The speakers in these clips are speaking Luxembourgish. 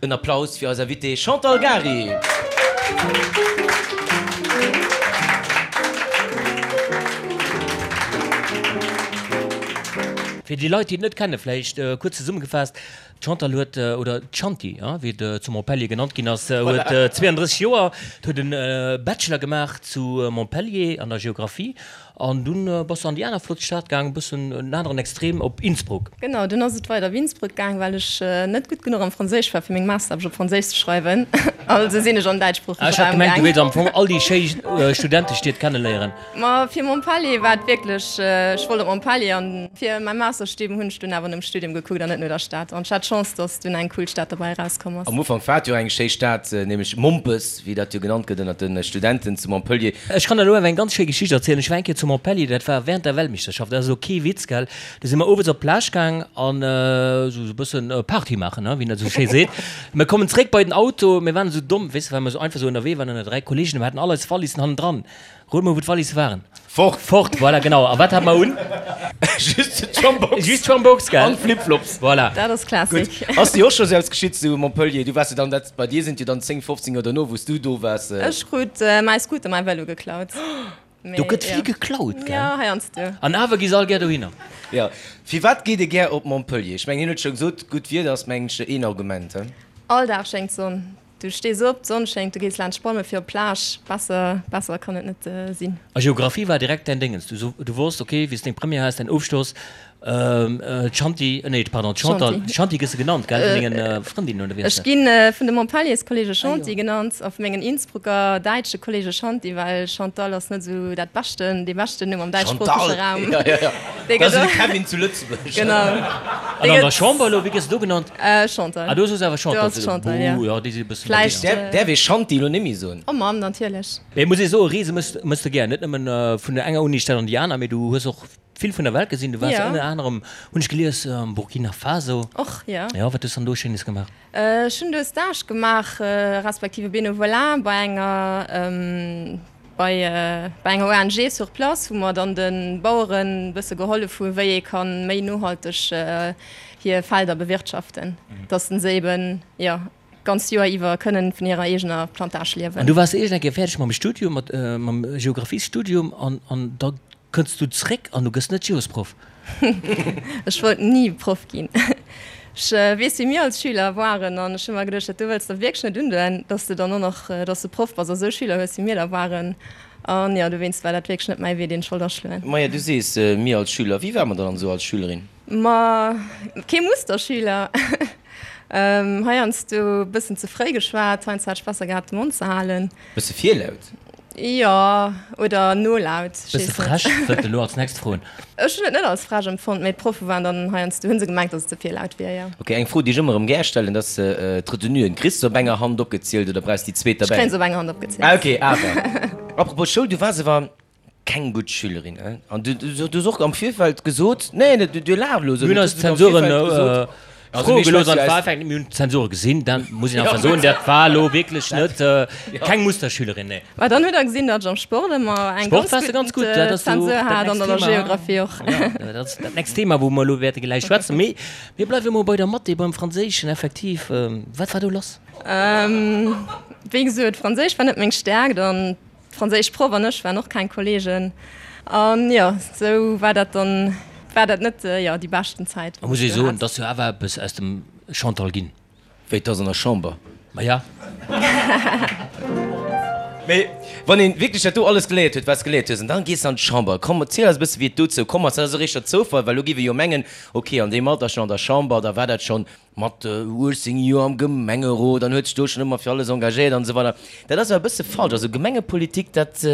En Applaus fir eis Invitée Chantal Gary. Fir déi Leit, déi et net kennen, vläicht kuerz zesummegefaasst, D'Chantal huet, oder d'Chanti, wéi et zu Montpellier genannt ginn ass, huet 32 Joer, huet e Bachelor gemaach zu Montpellier an der Geographie An dunn bass de an déi aner flott Stad gaang, e bëssen en aneren Extrem, op Innsbruck. Genau, dunn ass et weider op Innsbruck gaang, well ech net gutt genuch am Franséisch war, fir meng Masteraarbecht op Franséisch ze schreiwen. Also sinn ech an den däitschsproochege Ah, ech hat Raum gemengt, du gaang. wéilts am Fong all déi schéi Studentestied kenneléieren. Ma fir Montpellier war et wierklech, ech wollt op Montpellier an fir mäi Masterstudium hunn ech dunn awer nom Studium gekuckt an net no der Stad. An ech hat d'Chance, dass dunn eng cool Stad derbäi erauskomm ass. Am Ufank war et jo eng schéi Stad, nämlech Mompes, wéi dat jo genannt gëtt ënnert de Studenten zu Montpellier. Ech kann der elo awer eng ganz schéi Geschicht erzielen. Ech war eng Kéier zu Montpellier, dat war während der Weltmeeschterschaft, dat ass elo kee Witz, gell. Du si mer owes op d'Plage gaang an esou e bëssen Party maachen, wéi een dat esou schéi seet. Mir kommen zréck bei den Auto, mir waren esou domm, weess de, well mer esou einfach esou ënnerwee waren ënner 3 Kolleegen, mir haten all eis Wallissen hannendran. Rot mol, wou d'Wallisse waren? Fort! Fort, voilà, genau. A wat hat mer un? Just d'Schambox. Just d'Schambox, gell? An d'Flipflops. Voilà. Dat ass Classic. Gutt. Ass dir och scho sou eppes geschitt zu Montpellier? Du waars jo dann, dat, bei dir sinn et jo dann 10, 15 Joer dono, wou s du do waars. Ech krut mäi Scooter, mäi Vëlo geklaut. Do gëtt vill geklaut, gell? Jo, heiansdo. An awer gi se all gär dohinner. Jo. Firwat geet ee gär op Montpellier? Ech mengen, hien huet scho gesot, gutt Wieder ass, mengen ech, een Argument, he? All Dag schéngt d'Sonn. Du stees op, d'Sonn schéngt, du gees laanscht Palme fir op d'Plage. Besser, besser kann et net sinn. A Geographie war direkt däin Déngens. Du, du wosst, ok, wéi s deng Première has, däin Ofschloss, d'Shanti, nee, pardon, d'Chantal, Shanti gëss de genannt, gell, vun dengen Frëndinnen, oder wéi ass dat? Ech gi vun de Montpellierskolleege Shanti genannt a vu mengen Innsbrucker däitsche Kolleege Shanti, well Chantal ass net esou dat beschten, dee beschten Numm am däitschsproochege Raum. Chantal, jo, jo, jo, dat ass esou de Kevin zu Lëtzebuerg. Genau. An an der Chamber elo, wéi gëss de do genannt? Chantal. Ah, do soos awer Chantal Do ass Chantal, ja. Buh, ja, déi si e bëssen Vläicht. Däerf, däerf ee Shanti elo nemmi soen? Oh Mamm, natierlech. Mee muss ee soen, Reese mëss, mëss de gär. Net nëmmen vun der enger Unistad an déi aner, mee du hues och vill vun der Welt gesinn. Du waars Ja. ënner anerem, hunn ech gelies, am Burkina Faso. Och, ja. Jo, wat hues dann do Schéines gemaach? Ech hunn do e Stage gemaach, respektive Benevolat bei enger, Bei enger ONG sur place, wou mer dann de Baueren e bësse gehollef hu wéi ee ka méi nohalteg hir Felder bewirtschaften, dass se eben jo d'ganzt Joer iwwer kënnen vun hirer eegener Plantage liewen. An du waars iergend eng Kéier fäerdeg mam Studium, mat mam Geographiesstudium an an da Kënns du zréck an du gëss net Geosproff? Ech wollt ni Proff ginn. Ech weess wéi mir als Schüler waren an ech hu mer geduecht, dat do wëlls de wierklech net undoen, dass de dann och nach, dass de Proff bass a sou Schüler hues wéi mir der waren. An jo, dowéinst war dat wierklech net mäi Wee, deen ech wollt aschloen. Maja, du sees mir als Schüler. Wéi war mer dann esou als Schülerin? Ma kee Musterschüler. Heiansdo e bëssen ze fréi geschwat, heiansdo hat ech besser gehat de Mond ze halen. Bësse virlaut? Jo, oder nolaut. Bësse frech, wëllt elo als nächst froen. Ech hunn et net als frech empfonnt, mee d'Proffe waren dann heiansdo, hu se gemengt, datt et ze vill laut wier, jo. Ok, eng Fro, déi ech ëmmer erëm gär stellen, dat ass d'Retenuen. Kriss de se op enger Hand opgezielt oder brauchs de déi zweet Ech derbäi? kréien se op enger Hand opgezielt. Ah ok, awer. Apropos Schoul, du waars awer Keng gutt Schülerin, hein? An du, du hues och am Virfeld gesot, nee, du, du laachs elo esou, Mir hunn du eis hues am Zensuren Virfeld gesot, also froe mir gelooss an schwätze et war eis. effektiv, mir hunn d'Zensure gesinn, dat muss een einfach soen, dat war elo wierklech net, keng Musterschülerin, nee. Mä dann hutt Der gesinn, datt ech am Sport ëmmer eng Sport ganz waars de ganz gutt, dat gutt ass jo och Zensur dat hat an nächst an der Thema. Geographie och. Jo, dat ass dat nächst Thema, wou mer elo wäerte gläich schwätzen. Mee mir bleiwe mol bei der Mathé, beim Franséischen effektiv. Wat war do lass? Wéi gesot, Franséisch war net meng Stäerkt an D'franséisch Proff an ech waren och keng Kollegen an jo, sou war dat dann, war dat net jo déi beschten Zäit Da muss ee soen, et ass jo awer eppes aus dem Chantal ginn. Wéi, 't ass an der Chamber? Maja. Mee wann een wierklech dat do alles geléiert huet, wat s geléiert hues, an dann gees de an d'Chamber. Komm, erziel eis e bësse wéi et dozou komm ass. Dat ass eréischter Zoufall, well elo géif ee jo mengen, ok, an deem Alter schonn an der Chamber, da war dat schonn Mat 18 Joer am Gemengerot an huet sech do schonn ëmmer fir alles engagéiert an esou weider. Dat ass awer e bësse falsch. Also Gemengepolitik, dat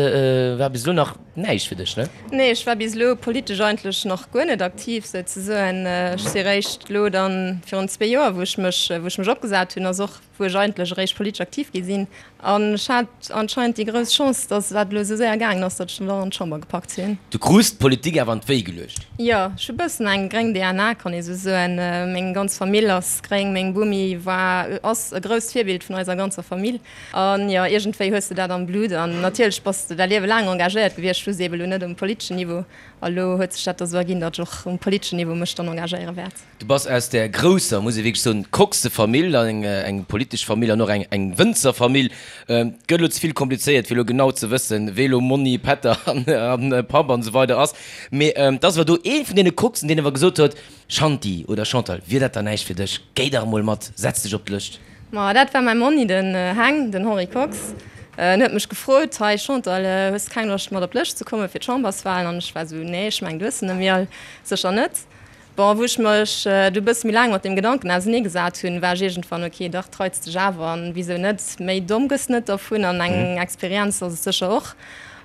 war bis elo nach näischt fir dech, ne? Nee, ech war bis elo politesch eigentlech nach guer net aktiv souzesoen. Ech si réischt elo dann virun zwee Joer, wou ech mech, wou ech mech opgesat hunn, ass och wou ech eigentlech eréischt politesch aktiv gi sinn. An ech hat anscheinend déi grouss Chance, datt dat elo esou séier gaangen ass, datt ech dann an d'Chamber gepackt hunn. Du krus d'Politik awer an d'Wéi geluecht? Jo, ech hu bëssen eng gréng DNA, kann ee sou soen. Meng ganz Famill ass. immens gréng. Meng Bomi war, ass e grousst Virbild vun eiser ganzer Famill. An jo, iergendwéi hues de dat am Blut. An natierlech bass de däi Liewe laang engagéiert gewiescht, just eebe lo net um politeschen Niveau. A lo huet sech dat da sou erginn, datt ech och um politeschen Niveau mech dann engagéiere wäert. Du bass aus där grousser, muss ee wierklech soen, Coxe-Famill, eng politesch Famill an och eng Wënzerfamill. Et gëtt elo ze vill komplizéiert, fir elo genau ze wëssen, wee elo Monni, Pätter an Papp an esou weider ass. Mee et ass awer do ee vun deene Coxen, deen awer gesot huet, Shanti oder Chantal, wier dat dann näischt fir dech? Géi dach emol mat, setz dech op d'Lëscht. Ma dat war mäi Monni, den Heng, den Henri Kox. En huet mech gefrot, Hei Chantal, hues de keng Loscht mat op d'Lëscht ze kommen fir d'Chamberswahlen? An ech war esou, Nee, ech mengen, du hues se net méi all. Sécher net. Bon, wou ech mech du e bësse méi laang mat deem Gedanken ausenee gesat hunn, war ech iergendwann, ok, dach, treits dech awer an wisou net? Méi domm gëss net dervun an eng Experienz ass et sécher och.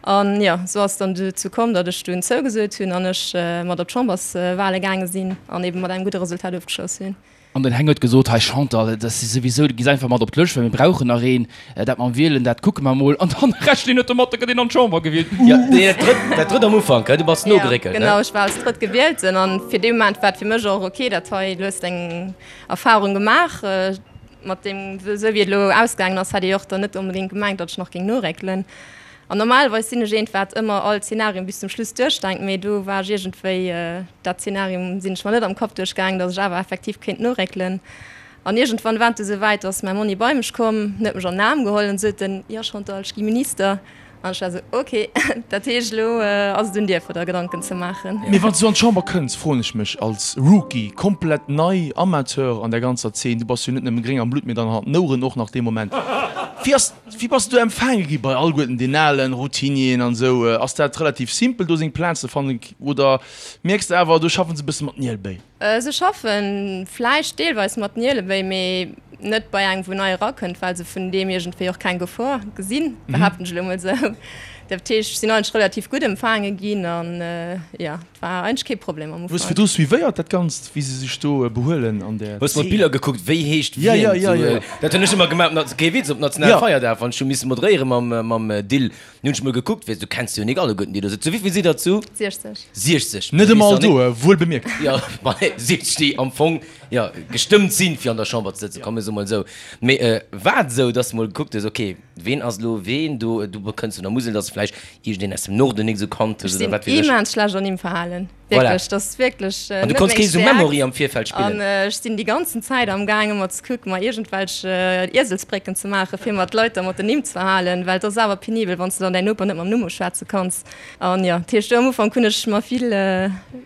An jo, esou ass et dann dozou komm, datt ech dunn zougesot hunn an ech mat op d'Chamberswahle gaange sinn an ebe mat engem gudde Resultat ofgeschloss hunn. An den Heng huet gesot, Hei Chantal, dat si souwisou, du gees einfach mat op d'Lëscht, well mir brauchen nach een. Dat mam Wielen, dat kucke mer mol. An dann rechent een net domat, da gëtt een an d'Chamber gewielt. Jo, dat drëtt, dat drëtt am Ufank, du bass nogeréckelt, ne? Jo, genau, ech war als drëtt Gewielten an fir dee Moment war et fir mech och ok, dat hei, du hues deng Erfahrung gemaach. Mat deem, esou wéi et elo ausgaangen ass, hätt ee jo och dann net onbedéngt gemengt, datt ech nach géing noréckelen. An normalerweis sinn ech eent, wat ëmmer all Zenarien bis zum Schluss duerchdenkt, mee do war ech iergendwéi, dat Zenarium sinn ech mer net am Kapp duerchgaangen, datt ech awer effektiv kéint noréckelen. An iergendwann war et du souwäit, ass mäi Monni bei mech komm, huet mech an den Aarm geholl an sot en, Jo Chantal, ech gi Minister. An ech war esou, Ok, dat heescht elo ass et un dir fir der Gedanken ze maachen. Mee wann s du an d'Chamber kënns, froen ech mech, als Rookie, komplett nei, Amateur an der ganzer Zeen, du bass jo net nëmme gréng am Blutt, mee dann an den Oueren och nach dee Moment, wéi ass, wéi bass du do empfaange gi bei alleguerten den alen Routinieren an esou? Ass dat relativ simpel do seng Plaz ze fannen oder mierks de awer, do schaffen se e bësse mat Nielbéi? Se schaffen vläicht deelweis mat Nielebéi, mee net bei engem wou nei erakënnt, well se vun deem iergendwéi och keng Gefor gesinn, behaapten ech elo mol esou. Dat heescht, ech sinn eigentlech relativ gutt empfaange ginn an jo, et war eigentlech kee Problem am Ufank. Hues virdru suivéiert dat Ganzt, wéi se sech do behuelen an där Hues mer d'Biller gekuckt, wéi heescht wien? Jo, jo, jo, jo. Dat hunn ech ëmmer gemaach, kee Witz, op Nationalfeierdag, wann ech hu misse moderéiere mam Dill. Nun hunn ech mol gekuckt, weess du kenns jo nik alleguerten déi do sëtzen. Wéivill sidd der zu? 60. 60. Net ëmmer all do, wuel bemierkt. Jo, ma 60 déi am Fong, jo, gestëmmt sinn, fir an der Chamber ze sëtzen, komm mir soe mol esou. Mee war et esou, dass de mol gekuckt hues, ok, ween ass elo ween do, du kënns vun der Musel, dass vläicht iergendeen aus dem Norden nik esou kannt hues oder wat weess ech? Ech sinn immens schlecht an Nimmverhalen. Voilà. Wierklech, dat ass wierklech An du net konns meng kee sou Stäerkt. Memory am Virfeld An spillen? ech sinn déi ganzen Zäit am Gaang ëmmer ze kucken, mer iergendwelch Ieselsbrécken ze maachen, fir mer d'Leit da mat den Nimm ze verhalen, well et ass awer penibel, wann s de dann däin Noper net mam Numm uschwätze kanns. An jo, dat heescht, do am Ufank hunn ech mer vill,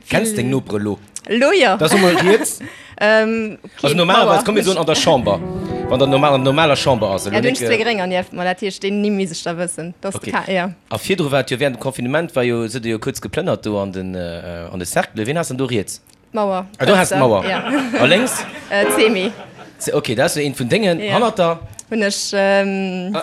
Kenns deng vill. Nopere lo? Lo jo. Da so mol riets. Ähm, Also kee normalerweis, Mauer. komm mir soen an der Chamber, wann der normal, an der normaler Chamber ass elo Ja, do hunn nik. ech zwee Grénger nieft mer, dat heescht, déi Nimm misst ech da wëssen. Dat ass Okay. de Ka, jo. A virdru war et jo während dem Confinement war jo, sidd der jo kuerz geplënnert do an den, an de Cercle. Wien has dann do riets? D'Mauer. Ah, do has d'Mauer. Ja. A lénks? D'Semi. Ok, dat ass jo eent vun dengen. Ja. Hannert der? Hunn ech. Ähm.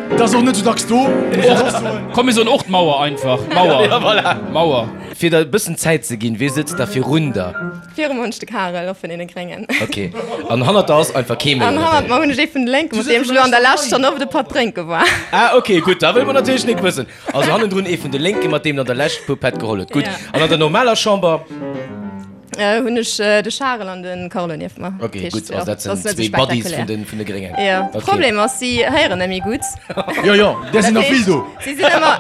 Dat ass och net sou dacks do, muss ech och soen. Komm mir soen och d'Mauer einfach. Mauer. Ja, voilà. Mauer. Fir der e bëssen Zäit ze ginn, wee sëtzt da virun der? Viru mer hunn ech de Karel, och vun deene Gréngen. Ok. An hannert der ass einfach kee méi, An oder hannert wéi? mer hunn ech ee vun de Lénken, mat deem ech elo an der Lescht schonn oft e Patt drénke war. Ah, ok, gutt, da wëlle mer natierlech nik wëssen. Also hannendrun ee vun de Lénken, mat deem der an der Lescht e puer Pätt geholl huet. Gutt. Ja. An an der normaler Chamber? Hunn ech de Charel an de Carlo nieft mer. Ok, gutt, also dat sinn zwee Buddies vun de vun de Gréngen. Jo, de Problem ass, si héieren net méi gutt. Jo, jo, där sinn der vill do. Si sinn ëmmer,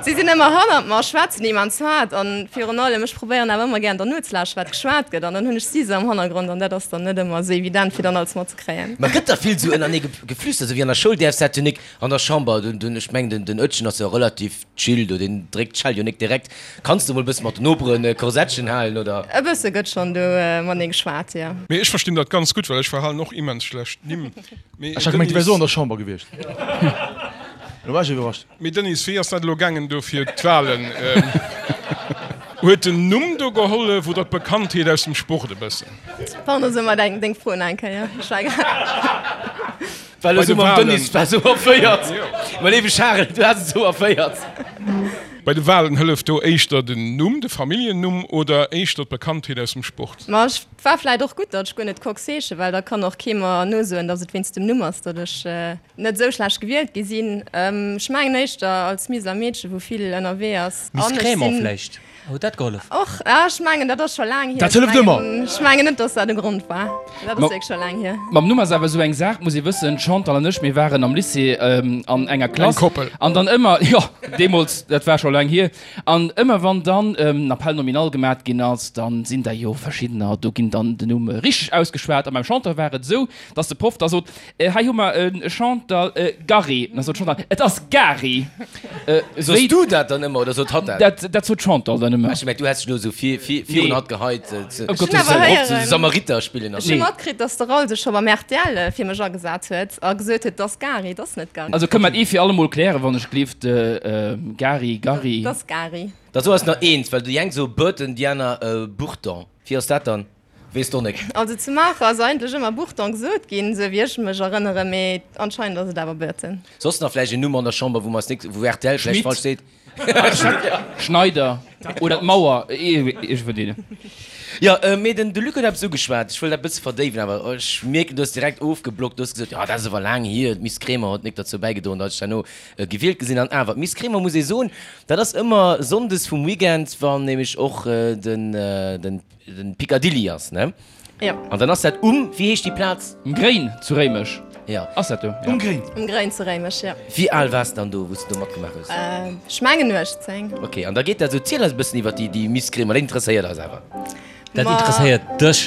si sinn ëmmer hannert mer, schwätzen immens haart an virun allem, ech probéieren awer ëmmer gären der nozelauschteren, wat geschwat gëtt an dann hunn ech si se am Hannergrond an dat ass dann net ëmmer esou evident, fir dann alles matzekréien. Ma gëtt da vill esou ënnerneë geflüstert, esou wéi an der Schoul däerfs dat jo nik an der Chamber? Dunn, ech mengen, den Oetjen ass jo relativ Chill do, deen dréckt d'Schell jo nik direkt. Kanns de mol bëssen mat den Noperen Korsettchen halen, oder? E bësse gëtt schonn do matenee geschwat, jo. Mee ech verstinn dat ganz gutt, well ech verhalen och immens schlecht Nimm. Mee Ech hat gemengt, du wärs och an der Denise. Chamber gewiescht. Elo war ech iwwerrascht. Mee Denise, wéi ass dat elo gaangen do fir d'Wahlen? Huet den Numm do gehollef oder d'Bekanntheet aus dem Sport e bëssen? Pardon, so mer deng Fro nach eng Kéier. Ech war grad. Well Bei esou de mam Wahlen. Denis war esou erféiert. Mä léiwe Charel, du has et esou erféiert. Bei de Walen hëlleft do éischter den Numm, de Familljennumm oder éischter d'Bekanntheet aus dem Sport? Ma et war vläit och gutt, datt ech guer net Kox heesche, well da kann och kee mer nosoen, datt et wéinst dem Numm ass, datt ech net esou schlecht gewielt gi sinn. Ech mengen éischter als Miseler Meedche wou vill ënnerwee ass. Miss Crémant vläicht? Huet dat gehollef? Och, ah, ech mengen dat ass scho laang hier. Dat hëlleft ëmmer! Ech mengen net, datt dat e Grond war. Dat ass wierklech scho laang hier. Mam Numm ass awer esou eng Saach, muss ee wëssen, d'Chantal an ech, mir waren am Lycée an enger Klass. Eng Koppel. An dann ëmmer, jo, deemools, dat war scho laang hier, an ëmmer wann dann en Appel nominal gemat ginn ass, dann sinn der jo verschiddener, do ginn dann den Numm richteg ausgeschwat. A beim Chantal war et esou, datt de Proff da sot, Hei hu mer e Chantal Gary. Da sot d'Chantal, Et ass Gary. Sos du dat dann ëmmer oder sot hatt dat? Dat sot d'Chantal dann ëmmer. Ech hu gemengt, du häss dech elo esou virun hatt geheit, Ëm Gottes Wëllen. Samariter spillen. Ech hu matkritt, datt de Raoul sech scho beim rtl fir mech agesat huet a gesot huet, 't ass Gary, 't ass net Gary. Also kënne mer et ee fir allemol klären, wann ech gleeft, Gary, Gary. 't ass Gary. Da so eis nach eent, well déi eng soe Burton, déi aner Burton. Wéi ass dat dann? Weess d'Onek. Also zu Maacher ass eigentlech ëmmer Bourton gesot ginn, sou wéi ech mech erënneren, mee anscheinend ass et awer Burton. Soss nach vläicht en Numm an der Chamber, wou mer eis nik, wou rtl vläicht falsch seet? Schneider oder d'Mauer, ee vun deenen. Jo, mee den de Luc huet eppes ugeschwat, ech wëll dat e bësse verdéiwen, awer ech mierken, du hues direkt ofgeblockt, du hues gesot, jo dat ass awer laang hier, d'Miss Kremer huet nik derzou bäigedroen, datt ech herno gewielt gi sinn. An awer, d'Miss Kremer, muss ee soen, dat ass ëmmer sonndes vum Weekend, wann nämlech och den den. Den Picadilly ass, ne? Jo. An dann ass dat um, wéi heescht déi Plaz? Um Gréin zu Réimech. Jo. Ass dat do? Um Gréin. Um Gréin zu Réimech, jo. Wéi al waars de dann do, wou s de do matgemaach hues? Ech mengen 18. Ok, an da geet dat esou. Ziel eis e bëssen iwwer déi Miss Kremer, dat interesséiert eis awer. Dat interesséiert dech.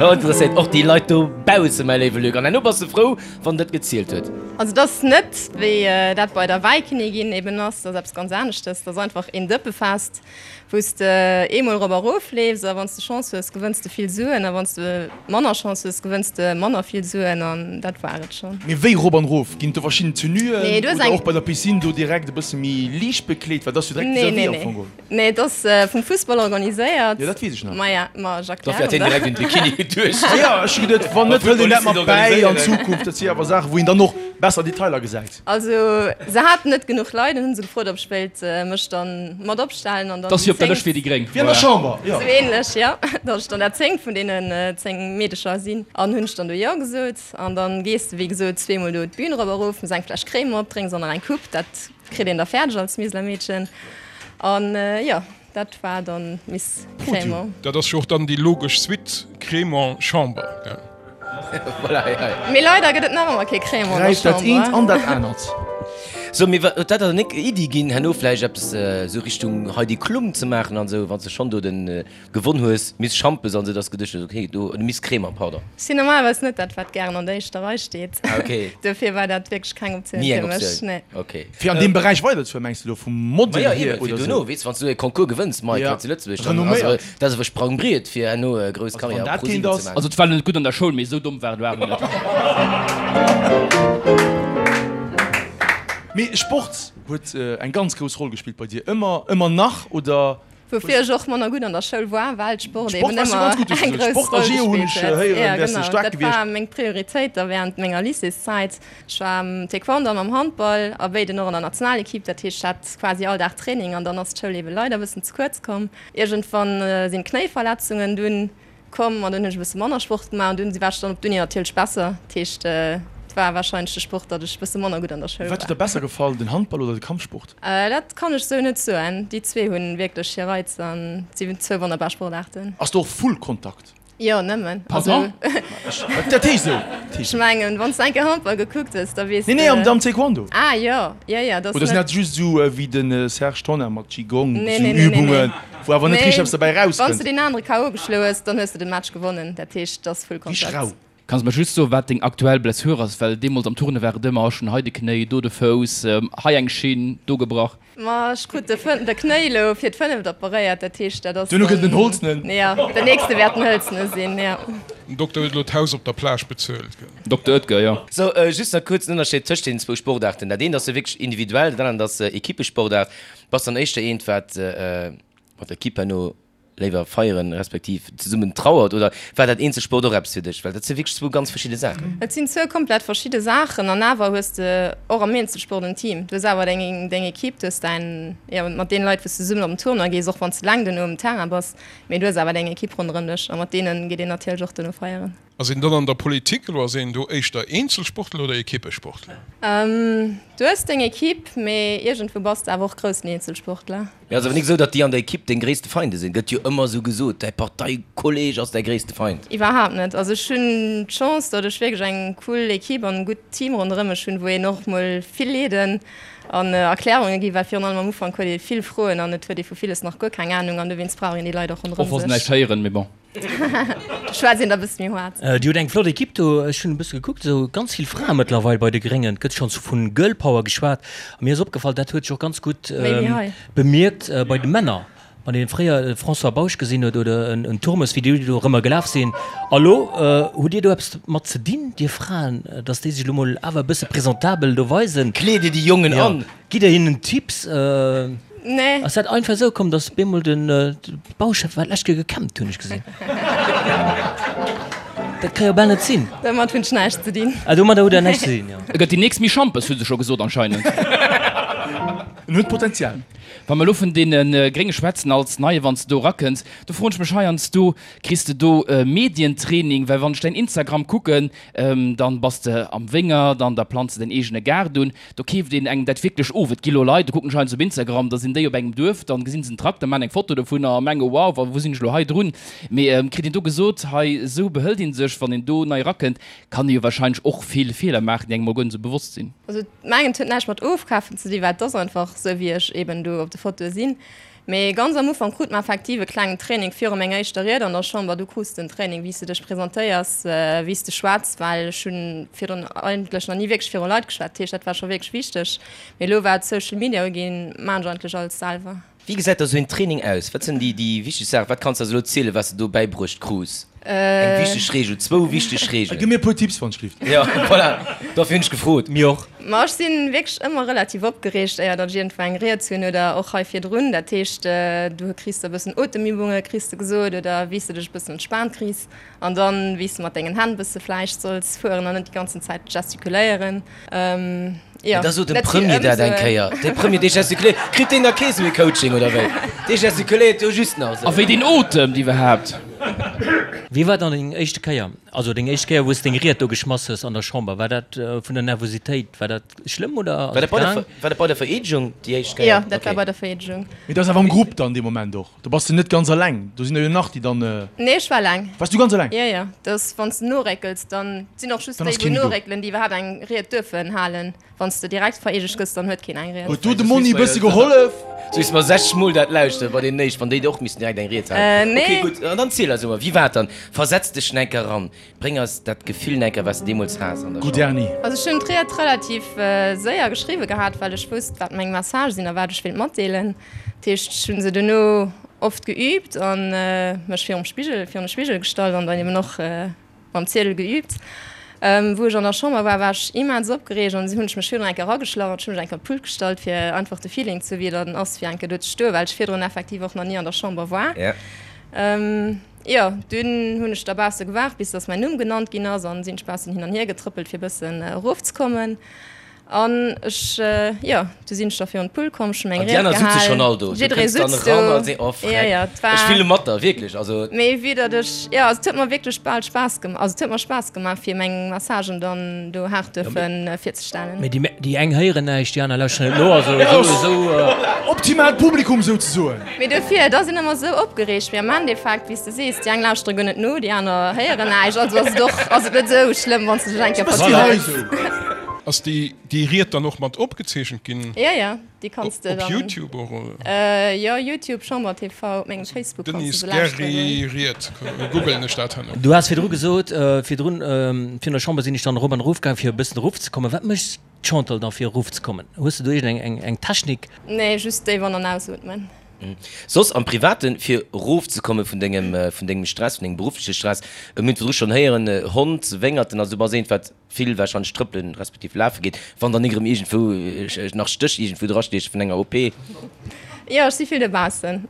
Dat interesséiert och déi Leit dobaussen, mäi léiwe Luc. An herno bass de frou, wann dat gezielt huet. Also et ass net wéi dat bei der Wäikinnigin eben ass, dat ass eppes ganz aneschtes. Dat ass einfach een Dëppefest. Wou s de eemol erop a rof leefs a wann s de Chance hues, gewënns de vill Suen a wann s de manner Chance hues, gewënns de manner vill Suen an dat war et schonn. Mee wéi rop an rof? Ginn et do verschidden Tenuen Nee, du hues oder eng. och bei der Piscine do direkt e bësse méi liicht bekleet? Well et ass jo direkt Nee, vis-à-vis nee, am nee. Fong geholl. Nee, et ass vum Fussball organiséiert. Jo, dat weess ech nach. Maja, ma ech Dofir hat erklären hien der. direkt un d'Bikini geduecht. Jo, ech hu geduet, wann net, hëlt een dat mat bäi an Zukunft. Dat si awer Saachen, wou een dann och besser Detailer gesäit. Also se haten net genuch Leit an hunn se gefrot, ob ech wéilt mech dann mat opstellen an dann Dass si op der déi Lëscht fir déi Gréng. Wéi an der Chamber, jo. Sou ähnlech, jo. Dass ech dann dat zéngt vun deenen 10 Meedecher sinn. An hunn ech dann do jo gesot. An dann gees de wéi gesot zweemol do d'Bün erop a rof, mëss eng Fläsch Crème op, drénks och nach eng Coupe, dat kritt een da fäerdeg als Miseler Meedchen. An jo. Dat war dann Miss Crémant. Dat ass jo och dann déi logesch Suite, Crémant, Chamber, gell? Voilà, ja, ja. Mee leider gëtt et nach ëmmer kee Crémant an der Gräift dat eent Chamber. an dat anert. So, mee wat, huet dat der nik Iddi ginn, herno vläicht eppes esou Richtung Heidi Klum ze maachen an esou, wann s de schonn do den gewonn hues, Miss Schampes an esou, dass de geduecht hues, okay, do, oder Miss Crémant, pardon. Ech sinn normalerweis net dat, wat gären an der éischter Rei steet. Ah, okay. Dofir war dat wierklech keng Optioun Ni fir eng mech. Optioun. Nee. Okay. Fir an deem Beräich weiderzefueren, mengs de elo vum Model Ma jo, hier eben, fir oder duerno, sou? weess, wann s du e Concours gewënns, Mike, Ja, hei zu Lëtzebuerg, dann ass renomméiert. dat ass e Sprangbriet fir herno e grouss Also wann Karriär op dat ProSieben keent ze ass. maachen. Also et war net gutt an der Schoul, mee esou domm war et elo awer net. Mee Sport huet eng ganz grouss Roll gespillt bei dir, ëmmer, ëmmer nach, oder? Woufir ech och manner gutt an der Schoul war, well Sport Sport eben warst du ëmmer ganz gutt, hues du eng gesot. grouss Sport a Roll Geo hunn gespillt ech huet. héieren, Jo, wäers de genau, staark dat gewiescht. war meng Prioritéit da während menger Lycéeszäit. Ech war am Taekwondo an am Handball a béiden och an der Nationalequipe. Dat heescht, ech hat quasi all Dag Training an dann ass d'Schoul ebe leider e bëssen ze kuerz komm. Iergendwann sinn d'Knéiverletzungen dunn komm an dunn hunn ech e bësse manner Sport gemaach an dunn war ech dann op d'Uni natierlech besser. Dat heescht, et war warscheinlech de Sport, datt ech e bësse manner gutt an der Schoul Wat huet war. der besser gefall, den Handball oder de Kampfsport? Dat kann ech sou net soen. Déi zwee hunn wierklech hir Reiz an si zwou wonnerbar Sportaarten. Ass do och Full Kontakt? Jo, nëmmen. Pardon? Dat heescht esou. Ech mengen, wann s de eng Kéier Handball gekuckt hues, da weess de. Nee, nee, am Taekwondo. Ah jo, jo, jo, dat ass Oder sinn net. dat just esou wéi de Serge Tonnar mat Qigong, Nee, esou nee, nee, nee, Übungen, nee. wou awer net richteg eppes derbäi Wann s erauskënnt? de deen anere KO geschloe hues, dann hues de den Match gewonnen. Dat heescht, dat ass Full Richteg Kontakt. rau. Kanns mer just soen, wat deng aktuell Blessure ass? Well deemools am Turne war et ëmmer, ech hunn hei de Knéi, do de Fouss, hei eng Schinn, do gebrach. Ma ech krut de de Knéi elo fir d'fënneft operéiert, dat heescht dat ass Duerno gëtt et en dann, Holzenen. jo, den nächste wäert en hëlzene sinn, jo. Den Dokter huet elo d'Haus op der Plage bezuelt, gell? Dokter Oetker, jo. Sou, just nach kuerz den Ënnerscheed tëscht deenen zwou Sportaarten. Dat eent ass jo wierklech individuell, dat anert ass Equippesportaart. Bass dann éischter eent, wat mat der Equipe herno. léiwer feieren, respektiv zesummen trauert? Oder war dat Eenzelsport och eppes fir dech? Well dat si wierklech zwou ganz verschidde Saachen. Et sinn zwou komplett verschidde Saachen an awer hues de och am Eenzelsport en Team. Du hues awer deng deng Equipe, du hues däin, jo, mat deene Leit wou s de zesummen op den Tournoi gees, och wann s de eleng duerno um Terrain bass, mee du hues awer deng Equipe ronderëm dech a mat deene geet een natierlech och duerno feieren. Ass een dann an der Politik elo, ass een do éischter Eenzelsportler oder Equippesportler? Du hues deng Equipe, mee iergendwou bass de awer och groussen Eenzelsportler. Mee ass awer nik esou, datt déi an der Equipe deng gréisste Feinde sinn? Gëtt jo ëmmer esou gesot, däi Parteikolleg ass däi gréisste Feind. Iwwerhaapt net. Also ech hunn d'Chance, datt ech wierklech eng cool Equipe an e gutt Team ronderëm mech hunn, wou een och mol vill Leeden an Erklärunge ginn, well virun allem am Ufank huet ee vill Froen an et huet ee vu villes nach guer keng Anung an dowéinst brauch een déi Leit och Och ronderëm wa se sech. näischt héieren, mee bon. Schwätzt een da bëssen méi haart. Dir hutt eng flott Equipe do. Ech hunn e bësse gekuckt, esou ganz vill Frae mëttlerweil bei de Gréngen. Et gëtt schonns vu Girl Power geschwat. A mir ass opgefall, dat huet sech och ganz gutt bemierkt bei de Männer. Wann een fréier e François Bausch gesinn huet oder en Turmes, wéi déi do erëmmer gelaf sinn. A lo hutt Dir do eppes mat ze dinn, Dir Fraen, datt déi sech elo mol awer e bësse presentabel do weisen? Kleet Dir déi Jongen an? Gitt Der hinnen Tipps? Nee. Ass dat einfach esou komm, dass bemol den Bauchef war d'lescht Kéier gekämmt, hunn ech gesinn. Dat ka jo bal net sinn. Domat hunn ech näischt ze dinn. Ah, domadder hutt Der näischt ze dinn, jo. E gëtt déi nächst Misch Schampes, hu se scho gesot anscheinend. En huet Potenzial. Wa mer elo vun deene Grénge schwätzen als Neie, wann s de do erakënns, do froen ech mech heiansdo, Kriss de do Medientraining? Well wann ech däin Instagram kucken, dann bass de am Wéngert an da planz de däin eegene Gaart un. Do keeft een engem dat wierklech of. Et gi lo Leit, do kucken ech heiansdo op Instagram, da sinn déi op engem Duerf, dann gesinn se en Trakter, maachen eng Foto dovunner a mengen, wow, wa wou sinn ech lo hei drun? Mee kritt een do gesot, hei esou behëlt een sech, wann een do nei erakënnt, kann ee jo wahrscheinlech och vill Feeler maachen, déi engem mol guer net esou bewosst sinn. Also mengen et huet näischt mat ofkafen ze dinn, well et ass einfach esou wéi ech eben do op de Fotoe sinn. Mee ganz am Ufank krut mer effektiv e klengen Training viru menger éischter Ried an der Chamber. Du krus den Training, wéi s de dech presentéiers, wéi s de schwätz, well ech hunn virdrun eigentlech nach ni wierklech viru Leit geschwat. Dat heescht, dat war scho wierklech wichteg. Mee elo wat Social Media uginn, maan ech eigentlech alles selwer. Wéi gesäit da sou een Training aus? Wat sinn déi wichteg Saachen? Wat kanns de eis elo zielen, wat s de do bäibruecht krus? Eng wichteg Reegel, zwou wichteg Reegelen. Gi mir e puer Tipps, wann ech gelift. Jo, voilà, dofir hunn ech gefrot. Mir och. Ma ech si wierklech ëmmer relativ opgereegt, éier datt ech iergendwou eng Ried hunn oder och hei virdrun. Dat heescht, du kriss da e bëssen Otemübunge kriss de gesot oder wéi s de dech e bëssen entspaant kriss an dann wéi s de mat dengen Hänn e bësse vläicht solls fueren an net déi ganzen Zäit gestikuléieren. Jo, da sot dem Premier dat eng Kéier. De Premier, dee gestikuléiert, kritt deen da kee sou ee Coaching oder wéi? Dee gestikuléiert jo just nach esou. A wéi deen otemt iwwerhaapt. Wéi war dann deng éischte Kéier, also deng éischt Kéier wou s deng Ried do geschmass hues an der Chamber? War dat vun der Nervositéit, war dat schlëmm oder ass et gaang? War dat bei der Vereedegung déi éischt Kéier? Jo, dat war bei der Vereedegung. Mee dat ass awer am Grupp dann dee Moment och? Do bass de net ganz eleng, do sinn der jo nach déi dann. Nee, ech war eleng. Wars du ganz eleng? Jo, jo. Dass wann s de noréckels, dann sinn och just déi wou noréckelen, déi iwwerhaapt eng Ried duerfen halen. Wann s de direkt vereedegt gëss, dann huet keen eng Ried. Huet do de Monni e bësse gehollef? Sou wéi s mer 60 mol dat lauschteren bei deenen éischt, wann déi och missten direkt eng Ried halen. Nee. Ok, gutt, an dann ziel eis emol, wéi war et dann? Versetz dech enker eran. Bréng eis dat Gefill enker, wat s de deemools has an der Gutt, Erni. Also ech hunn d'Ried relativ séier geschriwwe gehat, well ech wousst, wat meng Message sinn a wat ech wéilt matdeelen. Dat heescht, ech hu se duerno oft geüübt a mech virum Spigel, virun de Spigel gestallt an dann eben och mam Ziedel geüübt. Wou ech an der Chamber war, war ech immens opgereegt an hunn ech mech virdrun eng Kéier erageschlach an ech hu mech eng Kéier op d'Pult gestallt, fir einfach de Feeling ze hu wéi et dann ass, fir eng Kéier do ze stoen, well ech virdrun effektiv och nach ni an der Chamber war. Jo, dunn hunn ech da bausse gewaart, bis dass mäin Numm genannt ginn ass an sinn ech baussen hin an hier getrëppelt, fir bëssen erofzekommen. An ech, jo, du sinn ech da virun d'Pult komm, ech hunn meng An déi Ried aner sutze schonn all do. gehal. Du Jidderee kënns dann sutzt eran do. a sees, oh Jo, freck, jo, et war. ech fille mat der, wierklech, also. Mee vue datt ech, jo, also et huet mer wierklech bal Spaass gemaach, also et huet mer Spaass gemaach, fir meng Messagen dann do haart duerfe virzestellen. Mee déi, déi eng héieren näischt, déi aner lauschteren net no, also esou, esou. Optimaalt Publikum souzesoen. Mee dofir, da sinn ëmmer esou opgereegt. Mee am Endeffekt, wéi s de sees, déi eng lauschtere guer net no, déi aner héieren näischt. Also ass et och, ass et net esou schlëmm, wann s de dech eng Kéier vertrëppels. Ass déi déi Ried dann och mat opgezeechent ginn? Jo, jo, déi kanns de Op dann. Youtube och, oder? Jo, Youtube, Chamber TV, op mengem Facebook kanns de Denise se lauschteren. Gary Ried, googlen ech dat herno. Du has virdru gesot, virdrun, virun der Chamber sinn ech dann erop an erof gaang, fir e bëssen erofzekommen. Wat méchs Chantal, da fir erof ze kommen? Hues de do iergend eng eng Technik? Nee, just déif an an ausootmen. Soss am Privaten, fir erof ze komme vun dengem vun dengem Stress, vun dengem beruffleche Stress, mir hunn virdru schonn héieren, Hond, Wéngerten, also du bass eent wat vill warscheinlech trëppelen respektiv lafe geet, wann dann nik erëm iergendwou nach Stéch iergendwou drastieche vun enger OP. Jo, ech si vill dobaussen.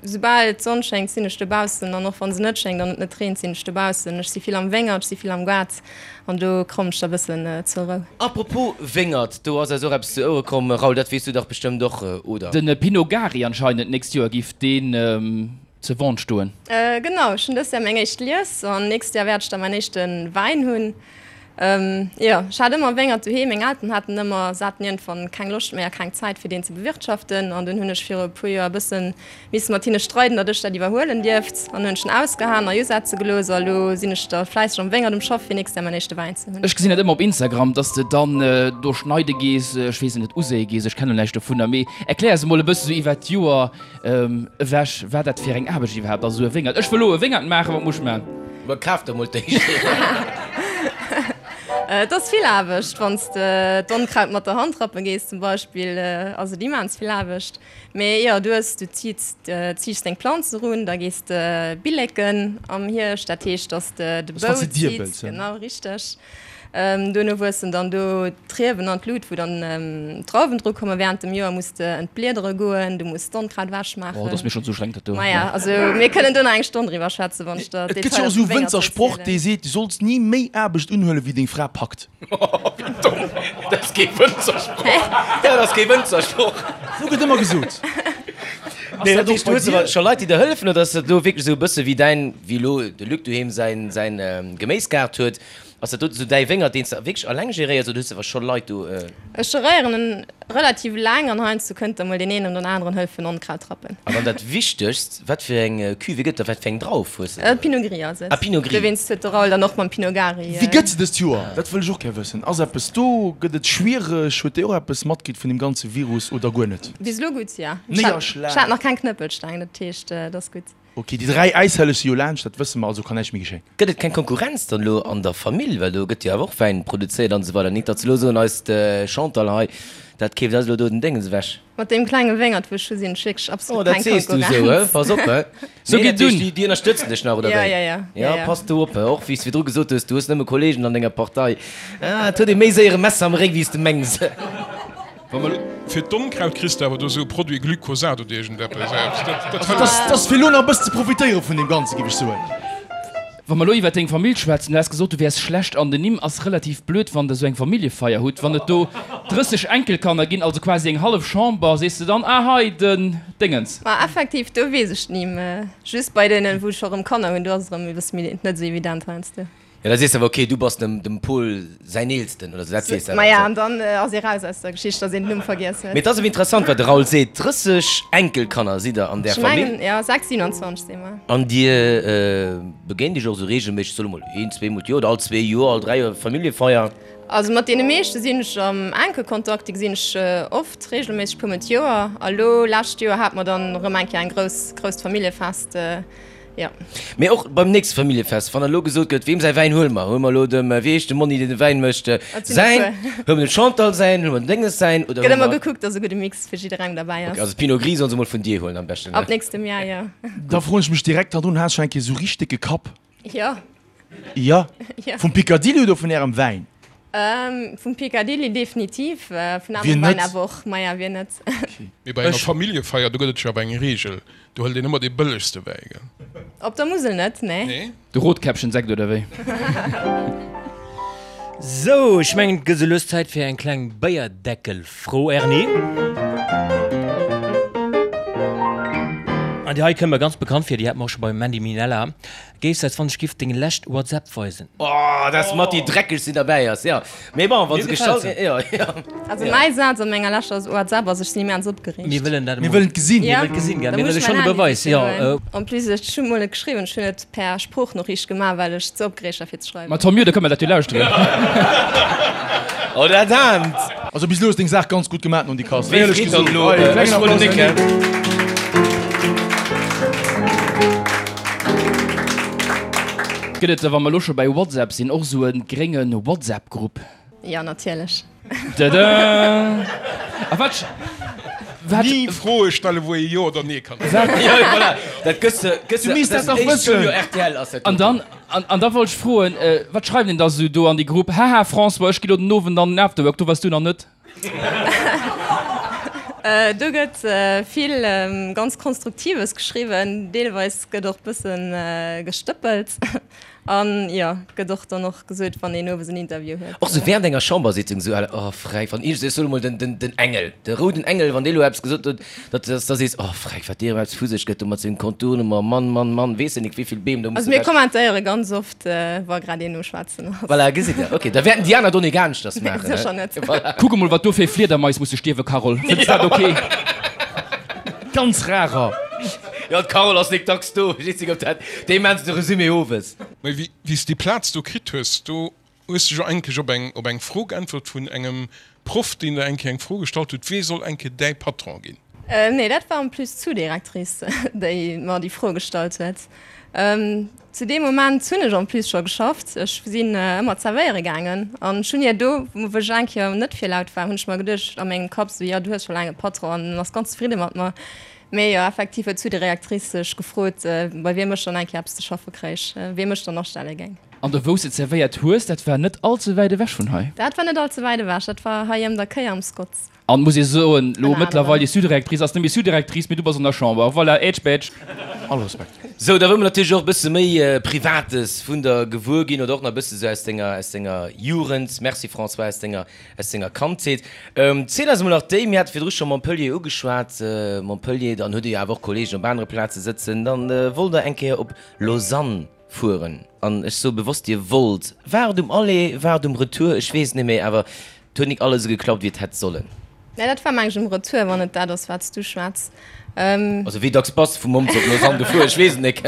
Soubal d'Sonn schéngt, sinn ech dobaussen an och wann se net schéngt an et net reent, sinn ech dobaussen. Ech si vill am Wéngert, ech si vill am Gaart an do kommen ech da bëssen zur Rou. Apropos Wéngert, do ass eis och eppes zu Ouere komm. Raoul, dat weess du dach bestëmmt och, oder? Den Pinot Gari anscheinend, d'nächst Joer giff deen ze Vente stoen. Genau, ech hunn dëst Jahr meng éischt Lies an nächst Jahr wäert ech da mäin éischte Wäin hunn. Jo, ech hat ëmmer Wéngert doheem, meng Elteren haten ëmmer, se haten iergendwann keng Loscht méi a keng Zäit fir deen ze bewirtschaften an dunn hunn ech viru e puer Joer e bësse misse mat hinne streiden, datt ech dat iwwerhuelen dierft an hunn ech en ausgehaen a usetze gelooss a lo sinn ech da fläisseg am Wéngert um Schaff fir nächst Jahr mäin éischte Wäin ze hunn. Ech gesinn dat ëmmer op Instagram, dass de dann do schneide gees, ech weess et net, uséie gees, ech kennen näischt dovunner, mee erklär eis emol e bësse sou iwwert d'Joer Ewech, wat dat fir eng Aarbecht iwwerhaapt ass, esou e Wéngert. Ech wëll elo e Wéngert maachen, wat muss ech maachen? Ma kaf der mol d'éischt een. Et ass vill Aarbecht. Wann s de d'Onkraut mat der Hand rappe gees zum Beispill, ass et immens vill Aarbecht. Mee jo, du hues, du ziits, ziichs deng Planz erun, da gees de billeken am Hierscht, dat heescht, datt s de de Bou ziits, genau richteg. Duerno wuessen dann do d'Riewen an d'Lut, wou dann d'Drauwen dru kommen. Während dem Joer muss de entbliedere goen, du muss d'Onkraut ewech maachen. Oh, dat ass mir schonn ze ustrengend, dat do. Maja, also mir kënnen do nach eng Stonn driwwer schwätzen, wann ech der Et gëtt jo d'Detailer och esou vum e Wéngert Wënzersproch, erzielen. dee seet, du solls ni méi Aarbecht unhuelen, wéi deng Fra packt. Wéi domm! Dat ass kee Wënzersproch! Dat ass kee Wënzersproch! Esou gëtt ëmmer gesot. Nee, dat heescht, du hues awer scho Leit, déi der hëllefen, oder ass dat elo wierklech esou e bësse wéi däin, wéi elo de Luc doheem säin, säin Geméisgaart huet? Ass dat do sou däi Wéngert, deen s de wierklech alleng geréiers oder hues de awer scho Leit do? Ech geréieren en relativ laang an heiansdo kënnt da mol deen een an den aneren hëllefen Onkraut rappen. An dann dat Wichtegst, wat fir eng Cuvée gëtt et da? Wat fir eng Drauf hues de do? Pinot Gris ass et. Ah, Pinot Gris. Dowéinst huet de Raoul dann och mam Pinot Gari. Wéi gëtt se dëst Joer? Dat wëll ech och gär wëssen. Ass eppes do? Gëtt et schwiereg? Huet Dir och eppes matkritt vun deem ganze Virus oder guer net? Bis elo gutt, jo. Ech hat nach keng Knëppelsteng, dat heescht, et ass gutt. Ok, déi 3 Äishelleg si jo laanscht, dat wësse mer, also kann näischt méi geschéien. Gëtt et keng Konkurrenz dann elo an der Famill, well do gëtt jo awer och Wäin produzéiert an esou weider, nit datt se elo soen, eist Chantal hei, dat keeft eis elo do den Déngens ewech. Mat deem klenge Wéngert wou ech hu sinn ech wierklech Oh, absolut dat keng sees du esou, Konkurrenz. he? Pass op, he? Sou Nee, geet dat heescht, dunn. déi, déi ënnerstëtzen dech nach, oder Ja, wéi? ja, ja, ja, Ja, ja. pass do op, he? Och wéi s de virdru gesot hues, du hues nëmme Kollegen an denger Partei. Ah, et huet ee méi séier e Messer am Réck, wéi s de mengs. Wa mer fir d'Onkraut kriss de awer do sou Produit Glyphosat oder iergendeppes. Dat Dat ass fir elo nach e bëssen ze profitéiere vun deem Ganzen, géif ech soen. Wa mer elo iwwer deng Famill schwätzen, du has gesot, du wäers schlecht an den Nimm. Ass relativ blöd, wann der sou eng Familljefeier hutt, wann et do 30 Enkelkanner ginn, also quasi eng hallef Chamber, sees de dann, ah hei den Déngens. Ma effektiv, do weess ech d'Nimm. Just bei deenen, wou ech scho rëm Kanner hunn, do ass et erëm e bësse méi net sou evident heiansdo. Jo, da sees de awer, ok, du bass dem dem Pol säin Eelsten oder sou, dat weess de awer. Maja, an dann ass ee raus aus der Geschicht, dass een den Numm vergiess huet. Mee et ass awer interessant, wat de Raoul seet, 30 Enkelkanner sidd der an där Ech Famill. mengen, jo, 6, 27 si mer. An dir begéint iech och esou reegelméisseg, soe mol een, zweemol d'Joer oder all zwee Joer, all dräi Joer Familljefeier? Also mat deene meeschte sinn ech am enke Kontakt, déi gesinn ech oft, reegelméisseg, puermol d'Joer. A lo, lescht Joer hate mer dann erëm eng Kéier eng grouss, grousst Familljefest. Jo. Mee och beim nächste Familljefest, wann elo gesot gëtt, weem säi Wäin huele mer? Huele mer elo dem, wéi heescht de Monni, deen de Wäin mécht, säin? Huele mer dem Chantal säin? Huele mer dem Dénges säin? Oder Gëtt huele ëmmer mer. gekuckt, dass e gudde Mix fir jidderengem derbäi Ok, ass. also Pinot Gris solle se mol vun dir huelen am beschten, ne? Ab nächstem Jahr, jo. Da froen ech mech direkt hannendrun, Has scho eng Kéier esou richteg décke Kapp? Jo. Jo? Jo. Vum Picadilly oder vun ärem Wäin? Vum Picadilly definitiv, vun Wien anerem Wäin net? awer och. Maja, wien net? Mee bei enger Familljefeier, do gëtt et jo awer eng Reegel, Do hëlt een ëmmer dee bëllegste Wäi, gell? Op der Musel net, nee. Nee? De Rotkäppchen-Sekt oder wéi? Sou, ech mengen et gëtt sou lues Zäit fir eng kleng Béierdeckel-Fro, Erni. An déi hei kënnt mer ganz bekannt vir, déi hat mer och scho beim Mandy Minella. Géifs eis wann ech giff deng lescht WhatsApp weisen? Oh, dat ass mat déi dreckegst déi derbäi ass, jo. Mee bon, wa se gestallt ginn, jo, jo. Also mäi Saz an menger leschter WhatsApp ass, ech sinn immens opgereegt. Mir wëllen dat Mir emol. wëllen et gesinn. Mir wëllen et gesinn, gell. Da Mir muss wëlle ech schonn mäin e Handy Beweis, jo. sichen. En plus, ech hunn mol net geschriwwen, ech hunn et per Sproochnoriicht gemaach, well ech ze opgereegt war fir ze schreiwen. Ma tant mieux, da kënne mer dat jo lauschteren. Oh, dat aarmt! Also bis elo hues deng Saach ganz gutt gemaat non Dikas. Wéi Éierlech freet dann gesot. elo? Hei, Ech klengen wollt Applaus Nick, un hä? Gëtt et, wa mer elo scho bäi WhatsApp sinn, och esou e grénge WhatsApp-Grupp? Jo, natierlech. Tada! A wat, wat. Ni Froe stellen, wou ee Jo oder Nee kann äntweren. Jo, voilà, dat gëss de, gëss Du de, misst dat dat dach ass wëssen. Studio rtl ass dat An doten. dann, an, an da wollt ech froen, wat schreift een da sou do an déi Grupp? Haha, François, ech gi lo den Owend an den Afterwork, do waars du nach net. Do gëtt vill ganz Konstruktives geschriwwen, deelweis gëtt och bëssen gestëppelt an jo, gëtt och dann och gesot, wann een owes en Interview huet. Och sou während enger Chambersitzung sou, oh Freck, wann iergend, ech soen emol den, den, den Engel, de rouden Engel, wann dee lo eppes gesot huet, datt, datt da sees, oh Freck, wat dee erëm eppes vu sech gëtt do mat sengem Contournement, Mann, Mann, Mann, weess de nik wéivill Beem do Also musse mir weg. kommentéiere ganz oft, wa grad een um Schwätzen ass. Voilà, gesitt der, ok, da wäerten déi aner do nik aneschters maachen, Sécher net. Voilà. Kuck emol, wat do fir Fliedermais musse stierwen, Carole. Fënns dat ok? Ganz rarer. Jo, d'Carole ass nik dacks do, ech weess nik, ob dat, déi maachen se de Resumé owes. Mee wéi s de déi Plaz do kritt hues, do hues de jo eigentlech op eng, op eng Fro geäntwert vun engem Proff, deen der eng Kéier eng Fro gestallt huet, Wee soll eng Kéier däi Patron ginn? Nee, dat war en plus d'Sous-directrice, déi mer déi Fro gestallt huet. Zu deem Moment hunn ech en plus scho geschafft. Ech sinn ëmmer zerwéiere gaangen an ech hunn hir do, wou ech eng Kéier net fir laut war, hunn ech mer geduecht a mengem Kapp esou, jo, du hues scho laang e Patron an en ass ganz zefridde mat mer. Mee jo, effektiv huet d'Sous-directrice sech gefrot, bei wiem ech dann eng Kéier eppes ze schaffe kréich, wiem ech dann astelle géing. An do wou s de zerwéiert hues, dat war net all ze wäit ewech vun hei? Dat war net all ze wäit ewech, dat war hei ëm der Kéier am Scotts. An muss ee soen, lo Ënner mëttlerweil anerem. déi Sous-directrice ass net méi Sous-directrice, mee du bass an der Chamber. Voilà, ätsch bätsch. All Respekt. Sou, da wëlle mer natierlech och e bësse méi Privates vun der gewuer ginn oder och nach e bësse sou aus denger, aus denger Jugend, merci François, aus denger, aus denger Kandheet. Ziel eis emol nach déi, mir hate virdru scho Montpellier ugeschwat, Montpellier, dann hutt Dir jo awer och Kolleegen op anere Plaze sëtzen, dann wollt Der eng Kéier op Lausanne fueren an ech soe bewosst Dir wollt, war et um Aller, war et um Retour, ech weess et net méi, awer et huet nik alles esou geklappt wéi et hätt sollen. Nee, dat war meng ech um Retour, wann et dat ass wat s du schwätz. Also wéi dacks bass de vu Mons op Lausanne gefuer, ech weess et nik.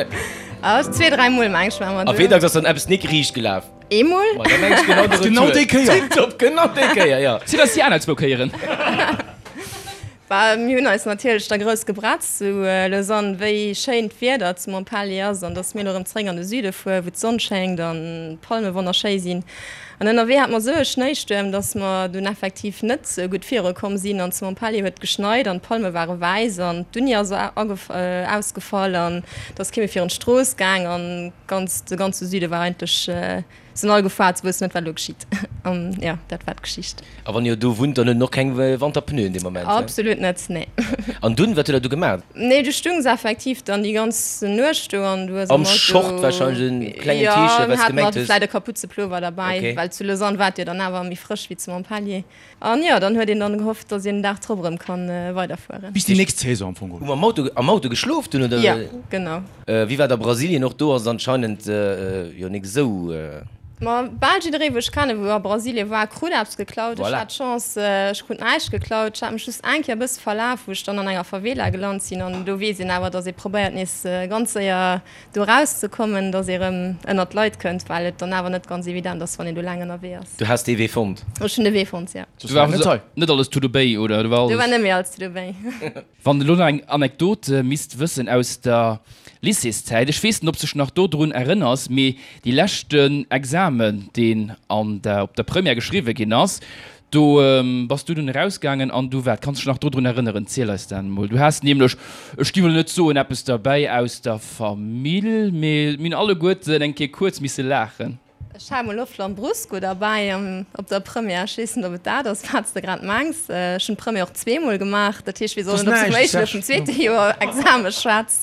Ah, zwee, dräi Mol meng ech war mer A do. wéi dacks ass dann eppes nik riicht gelaf? Eemol. Ma da meng ech genau de Retour. Genau déi Kéier. Tiptop, genau déi Kéier, jo. Sinn eis déi aner zwou Kéieren. Bah, mir hunn eis natierlech da grouss gebretzt zu Lausanne, wéi schéin d'Wieder zu Montpellier ass an dass mir elo erëm zeréck an de Süde fueren, wou d'Sonn schéngt an d'Palme wonnerschéi sinn. An ënnerwee hate mer esou e Schnéistuerm, dass mer dunn effektiv net esou gutt viru komm sinn an zu Montpellier huet geschneit an d'Palme ware wäiss an d'Uni ass ausgefall an et ass kee méi virun d'Strooss gaang an ganz, de ganze Süde war eigentlech Sinn all gefaart, se wëssen net wat elo geschitt. An jo, dat war d'Geschicht. A wann jo do wunnt, dann huet en och keng Wanterpneuen dee Moment, he? Absolut net, nee. An dunn, wat huet der du gemaat? Nee, du stungs effektiv dann déi ganz Nuecht do an du hues am Am Auto. Short wahrscheinlech, en klengen Jo, T-Shirt, mir wat s haten gemengt nach hues. vläit e Kaputzepullover derbäi, Okay. well zu Lausanne war et jo dann awer méi frësch wéi zu Montpellier. An jo, dann huet een dann gehofft, dass een den Dag drop erëm kann weiderfueren. Bis déi nächst Saison am Fong geholl. Hu mer am Auto, am Auto geschlof dunn, oder? Jo, genau. Wéi war et a Brasilien? Och do ass et anscheinend jo nik esou. Ma bal jidderee wou ech kennen, wou a Brasilien war, krut eppes geklaut. Ech Voilà. hat d'Chance, ech krut näischt geklaut. Ech hat mech just eng Kéier e bësse verlaf, wou ech dann an enger Favela gelant sinn. An do weess een awer, dass ee probéiert nees ganz séier do eraus ze kommen, dass ee rëm ënnert d'Leit kënnt, well et dann awer net ganz evident ass, wann een do laang ënnerwee ass. Du has dee Wee fonnt? Ech hunn de Wee fonnt, jo. Do war also net alles tudo bem, oder? Do war Do war alles. net méi alles tudo bem. Wann de lo nach eng Anekdot misst wëssen aus der Lycéeszäit, ech weess net, ob s dech nach dodrun erënners, mee dee leschten Examen, deen an der, op der Première geschriwwe ginn ass, Do bass du dunn erausgaangen an du wat? Kanns dech nach dodrun erënneren? Ziel eis dat emol. Du has nämlech, ech gi wëll net soen eppes derbäi aus der Famill, mee mir hunn alleguerten eng Kéier kuerz misse laachen. Ech hat emol och Lambrusco derbäi op der Première. Ech weess net, ob et dat ass, wat s de grad mengs. Ech hunn d'Première och zweemol gemaach. Dat heescht, weess och net, ob s de vum éischten oder vum zweete Joer Exame schwätz.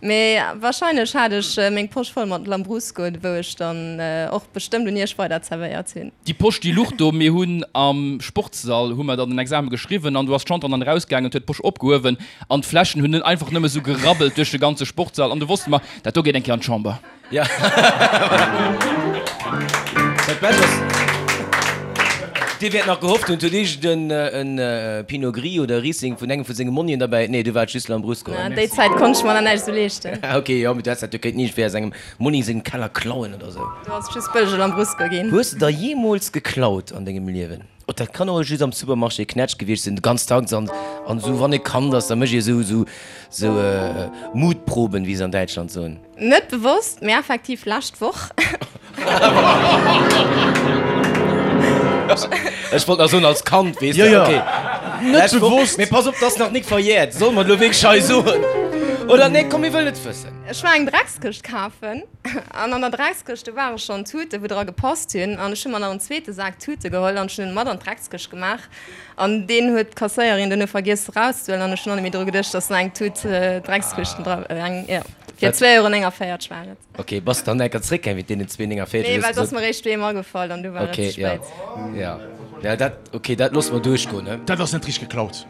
Mee wahrscheinlech hat ech meng Posch voll mat Lambrusco, wou ech dann och bestëmmt un iech weider zerwéiert hunn. Déi Posch déi luch do. Mir hunn am Sportssall hu mer dann den Examen geschriwwen an do ass d'Chantal dann erausgaangen huet d'Posch opgehuewen an d'Fläschen hunn einfach nëmme sou gerabbelt duerch de ganze Sportssall an du wosste mer, dat do geet eng Kéier an d'Chamber. Ja. Dat Bescht ass, Dir wäert nach gehofft hunn, et huet iergend en Pinot Gris oder Riesling vun engem vu senge Monnien derbäi. Nee, du war et just Lambrusco. Na, déi Zäit konnt ech mer nach näischt esou leeschten. Ah, ok, jo, mee du häss dat jo kéinten iergendwéi aus engem Monni sengem Keller klauen oder esou. Do ass et just bëllege Lambrusco ginn. Hues de der jeemools geklaut an dengem Liewen? Oh, dat kann och just am Supermarché Knätsch gewiescht sinn, ganz dacks an an esou wann ee Kand ass, da mécht ee esou esou esou Mutproben, wéi se an Däitschland soen. Net bewosst, mee effektiv lescht Woch. Ech wollt nach soen als Kand, weess de. Jo, jo. Okay. Net Lescht Woch. bewosst. Mee pass op, 't ass nach nik verjährt. Solle mer et elo wierklech hei soen? Oder nee, komm, mir wëllen et wëssen. Ech war eng Dreckskëscht kafen an an der Dreckskëscht, do ware schonn Tuten, wou dra gepasst hunn. An ech hu mer nach en zweete Sak Tute geholl an ech hunn en mat an d'Dreckskëscht gemaach. An deen huet d'Kasséierin duerno vergiess erauszehuelen an ech hunn och net méi dru geduecht, dass nach eng Tut Dreckskëschten dra, eng, jo, fir 2,49 Euro war et. Ok, bass dann enker zréckgaang wéi deenen 2,49? Nee, well et ass mer eréischt doheem agefall an du war et ze spéit. Ok, jo, jo, dat, ok, dat loosse mer duerchgoen, ne? Dat ass net richteg geklaut.